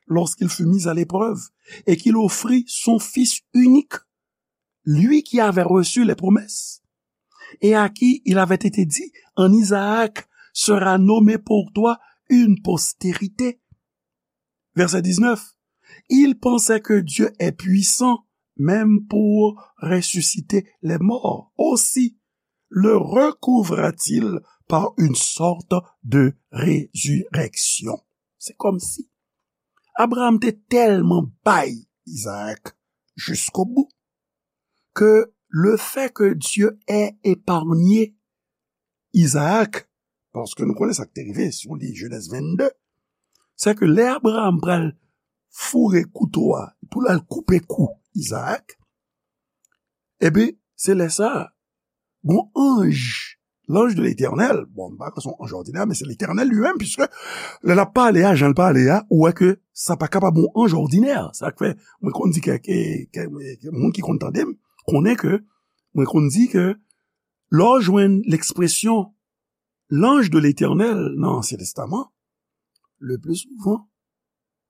lorsqu'il fut mis à l'épreuve et qu'il offrit son fils unique, lui qui avait reçu les promesses et à qui il avait été dit, en Isaac sera nommée pour toi une postérité. Verset dix-neuf. Il pensait que Dieu est puissant même pour ressusciter les morts. Aussi le recouvra-t-il par une sorte de résurrection. Se kòmsi Abraham te tèlman bay Isaac jusqu'au bout que le fait que Dieu ait épargné Isaac, paske nou konnen sa k te rive, si w li Jenèz vennde, se ke lè Abraham pral foure kouto a pou l al koupe kou Isaac, ebyen, se lè sa a, gon anj, l'ange de l'Éternel, bon, m pa kwè se yon anj òdinè, men se Letènèl li menm, piske lè l ap pale a, jan l pale a, ou wè ke sa pa kapab yon anj òdinè. Sa k fè, mwen konn di kèk, kèk, kèk moun ki konn tande m, konnen ke, mwen konn di ke lè w jwenn lekspresyon l'ange de l'Éternel nan Ansyen Testaman, le pli souvan,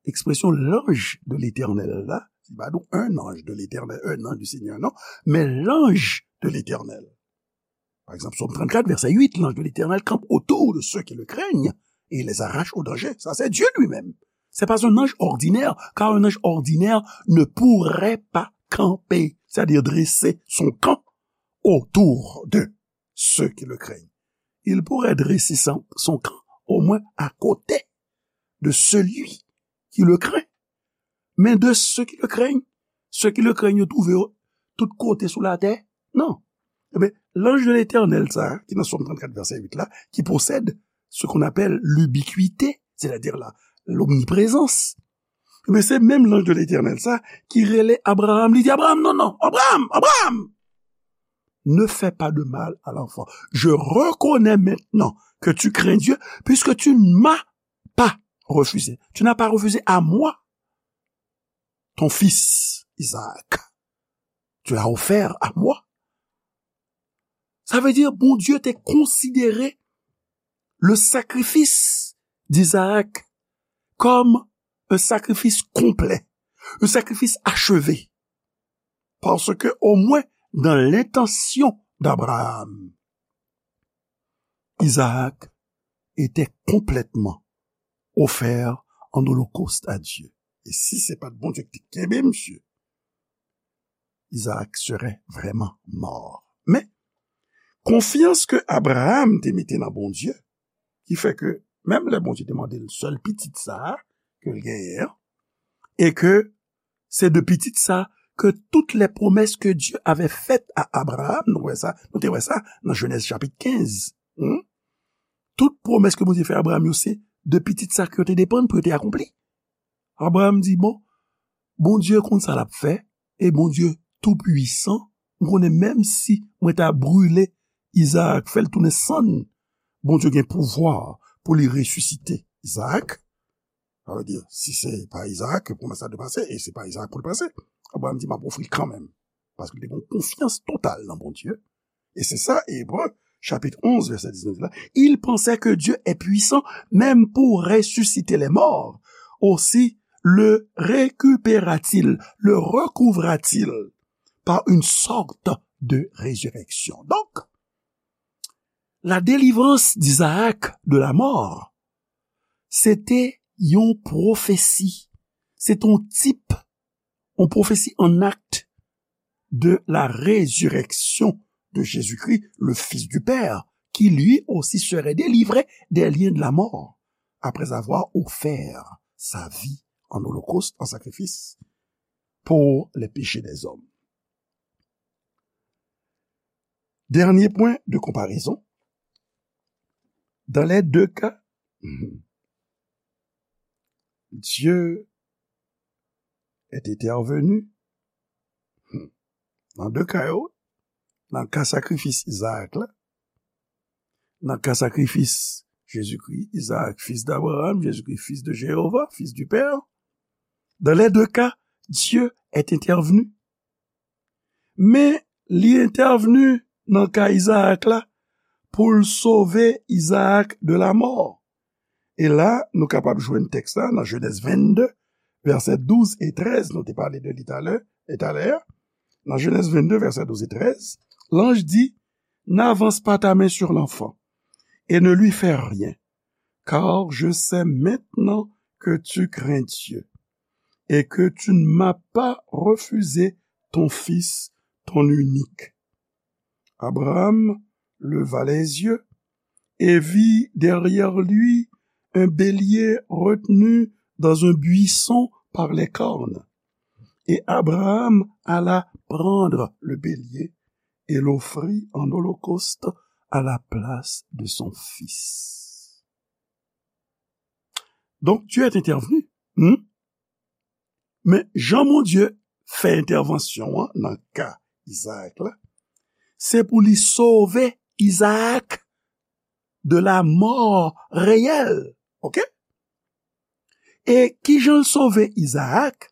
ekspresyon l'ange de l'Éternel la, se pa nou un ange de l'Éternel, un ange du Seigneur, non, men l'ange de l'Éternel. Pa egzanp, Sòm trannkat, vèsè uit, l'ange de l'Éternel campe autour de ceux qui le craignent et les arrache au danger. Ça, c'est Dieu lui-même. C'est pas un ange ordinaire, car un ange ordinaire ne pourrait pas camper, c'est-à-dire dresser son camp autour de ceux qui le craignent. Il pourrait dresser son, son camp au moins à côté de celui qui le craint. Mais de ceux qui le craignent. Ceux qui le craignent, yo twouve yo tout kote sou latè? Non. Ebyen, l'ange de l'Éternel, sa, ki nan Sòm trannkat, vèsè uit la, qui possède ce qu'on appelle l'ubiquité, c'est-à-dire la, l'omniprésence. Ebyen, se menm l'ange de l'Éternel, sa, ki rele Abraham, li di, Abraham, non, non, Abraham, Abraham, ne fais pas de mal à l'enfant. Je reconnais maintenant que tu crains Dieu, puisque tu ne m'as pas refusé. Tu n'as pas refusé à moi ton fils Isaac. Tu l'as offert à moi. Sa vle di, Bondye te konsidere le sacrifice d'Isaac comme un sacrifice complet, un sacrifice achevé. Parce que, au moins, dans l'intention d'Abraham, Isaac était complètement offert en holocauste à Dieu. E si se pa t Bondye ki te kenbe misye, Isaac serait vraiment mort. Men, konfyans ke Abraham te mete nan Bondye, ki fè ke menm lè Bondye te mande l sèl pitit sa a ke l genyen an, e ke se de pitit sa ke toutes les promesses que Dieu avait faites à Abraham, nou wè sa, nou te wè sa nan Jenèz chapit kenz. Hmm? Tout pwomès ke Bondye fè Abraham yo, se de pitit sa ke yo te depann pou yo te akonpli. Abraham di, bon, Bondye konn sa l ap fè, e Bondye tou pwisan, m konnen menm si mwen ta brile Izaak, fè l tounen sann, Bondye gen pouvwa pou li resisite Izaak. Sa vle di, si se pa Izaak ke pwomès la dwe pase, e se pa Izaak pou l pase, Abraham di, m ap ofri l kanmenm. Paske li te gen yon konfyans total nan Bondye. E se sa, Ebre, chapit onz, vèsè diznèf la. Il pensait que Dieu est puissant même pour ressusciter les morts. Aussi le récupéra-t-il, le recouvra-t-il par une sorte de résurrection. Donc, la délivrance d'Isaac de la mort, se te yon pwofesi. Se te yon tip, yon pwofesi an akt de la résurrection de Jésus-Christ, le Fils du Père, qui lui aussi serait délivré des liens de la mort, après avoir offert sa vie en holocauste, en sacrifice, pour les péchés des hommes. Dernier point de comparaison. Dans les deux cas, Dieu est intervenu. Nan de ka yo, nan ka sakrifis Izaak la, nan ka sakrifis Jezikri, Izaak, fils d'Abraham, Jezikri, fils de Jéhovah, fils du Père, dans les deux cas, Dieu est intervenu. Men li entèvni nan ka Izaak la pou l sove Izaak de la mò. E la, nou kapab jwenn tèks la nan Jenèz vennde, vèsè douz e trèz, nou te pale de li talè, e talè a. Nan Jenèz vennde, vèsè douz e trèz, l'ange dit, n'avance pas ta main sur l'enfant et ne lui fais rien, car je sais maintenant que tu crains Dieu et que tu ne m'as pas refusé ton fils, ton unique. Abraham leva les yeux et vit derrière lui un bélier retenu dans un buisson par les cornes. Et Abraham alla prendre le bélier et l'offrit en holocauste à la place de son fils. Donc, Dieu est intervenu. Hmm? Men jan Bondye fè entèvansyon an nan ka Izaak la, se pou li sove Izaak de la mò reyèl. Oke? E kijan l sove Izaak?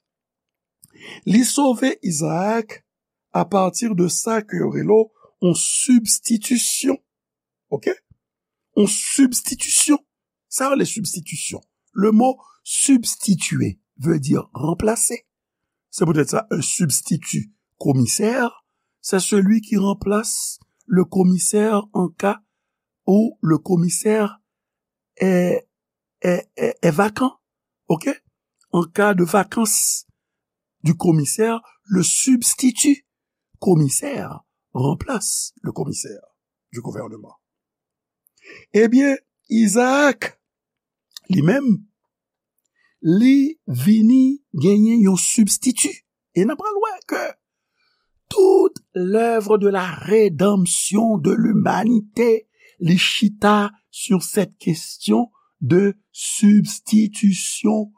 Li sove Izaak apati de sa ke yo rele yon sibstitisyon. Oke? Yon sibstitisyon. Sa yo rele sibstitisyon. Le mot substituer veut dire remplacer. C'est peut-être ça, un substitut commissaire. C'est celui qui remplace le commissaire en cas où le commissaire est, est, est, est vacant. OK? En cas de vacance du commissaire, le substitut commissaire remplace le commissaire du gouvernement. Ebyen, Izaak, li menm, li vini genyen yon sibstiti. E n ap pral wè ke tout lèv de la redanmsyon de limanite, li chita sou sèt kesyon de sibstitisyon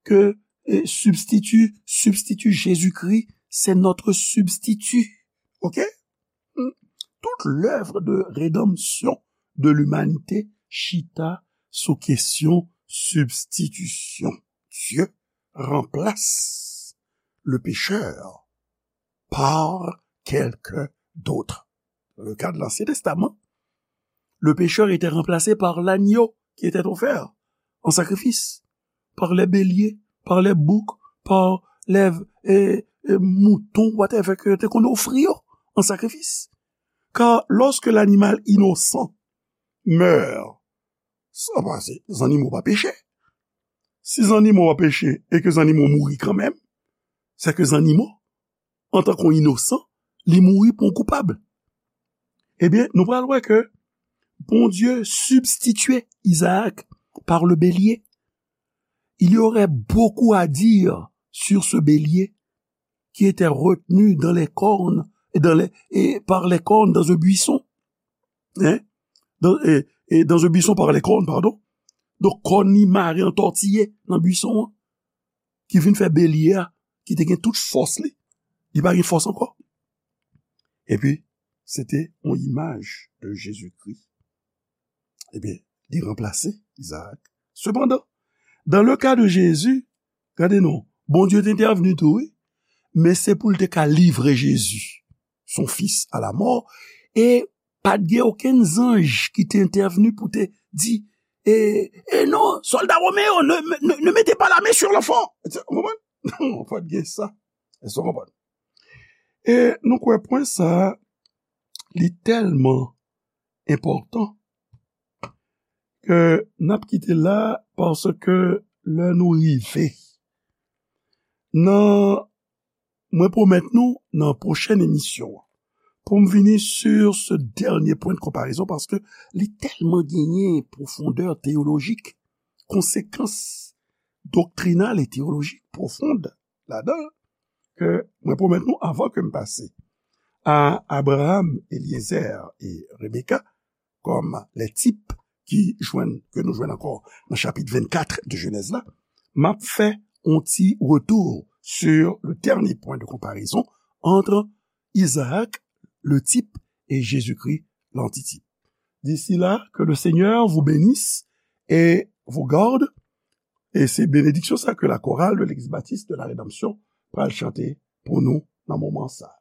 ke, e, sibstiti, sibstiti Jezikri, se notre substitut. Oke? Hmm. Tout lèv de redanmsyon de limanite chita sou kesyon sibstitisyon. Dieu remplace le pécheur par quelqu'un d'autre. Dans le cas de l'Ancien Testament, le pécheur était remplacé par l'agneau qui était offert en sacrifice, par les béliers, par les boucs, par les, e, e, moutons, whatever, ke te konn ofri yo an sakrifis. Car lorsque l'animal innocent meurt, sa pa se zannimo pa peche. Si zannimo pa peche e ke zannimo mouri kanmenm, se ke zannimo, antan ke yon inosan, li mouri pou yon koupab. Ebyen, nou pral wè ke Bondye substitue Isaac par le bélier. Il y aurait beaucoup à dire sur ce bélier qui était retenu dans les cornes, et dans les, et par les cornes dans un buisson. Hein? Dans, et, et dans un buisson par les cornes, pardon. Donk, kòn li mare antòtiye nan bwison an, ki vin fè belye a, ki te gen tout fòs li, li pa gen fòs ankò. Epi, se te yon imaj de Jezikri. Ebyen, li ranplase Izaak. Sepandan, dans le cas de Jésus, gade non, Bondye te entèvni tou, wi, men se pou l te ka livre Jezi, son fils, à la mort, e pa t gen okenn zanj ki te entèvni pou te di, e, e non, sòlda women yo, ne, ne, ne mettez pas la main sur l'enfant. Ou konprann? Non, pa t gen sa. Èske w konprann? E nou kwè pwen sa a, li tèlman enpòtan ke n ap kite la, paske lè nou rive nan, mwen pwomèt nou nan pwochèn emisyon an, pou m vini sur ce dernier point de comparaison, paske li tèlman genyen pwofondè teyolojik, konsekans doktrinal e teyolojik pwofond ladan, ke mwen pwomèt nou, avan ke m pase a Abraham, Eliezer e Rebeka kòm les types ki jwenn, ke nou jwenn ankò nan chapit vennkat de Jenèz la, m ap fè yon ti retour sur le dernier point de comparaison entre Isaac, le type, et Jésus-Christ, l'antitype. D'ici là, que le Seigneur vous bénisse et vous garde. E se benediksyon sa ke la chorale de l'Église Baptiste de la Rédemption pral chante pou nou nan moman sa.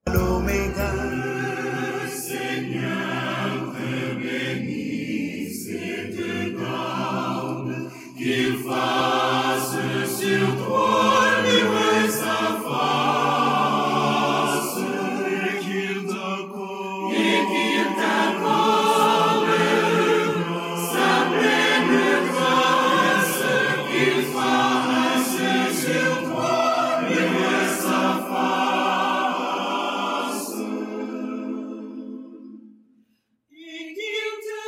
L'Oméga, le Seigneur te bénisse et te garde, qu'il fasse sur toi luire sa face, et qu'il t'accorde, et qu'il t'accorde sa pleine grâce, qu'il fasse sur toi luire sa face. Et qu'il te,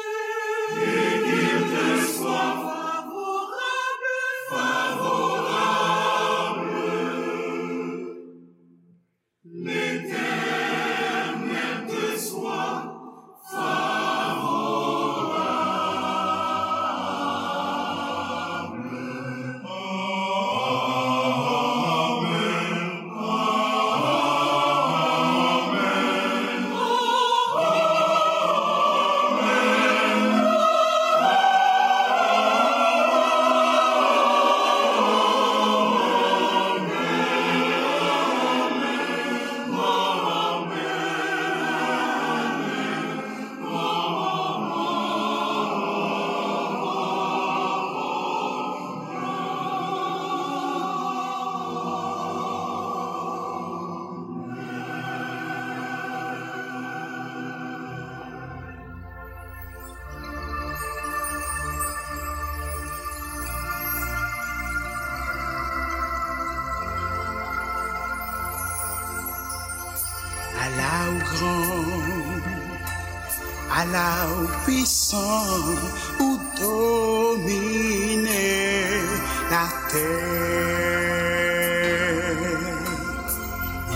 et qu'il te soit favorable, favorable. L'Éternel te soit favorable. Amen. Ala ou gran, ala ou pwisan, ou domine. Atè,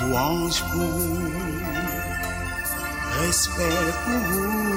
lwanj pou ou, respè pou ou.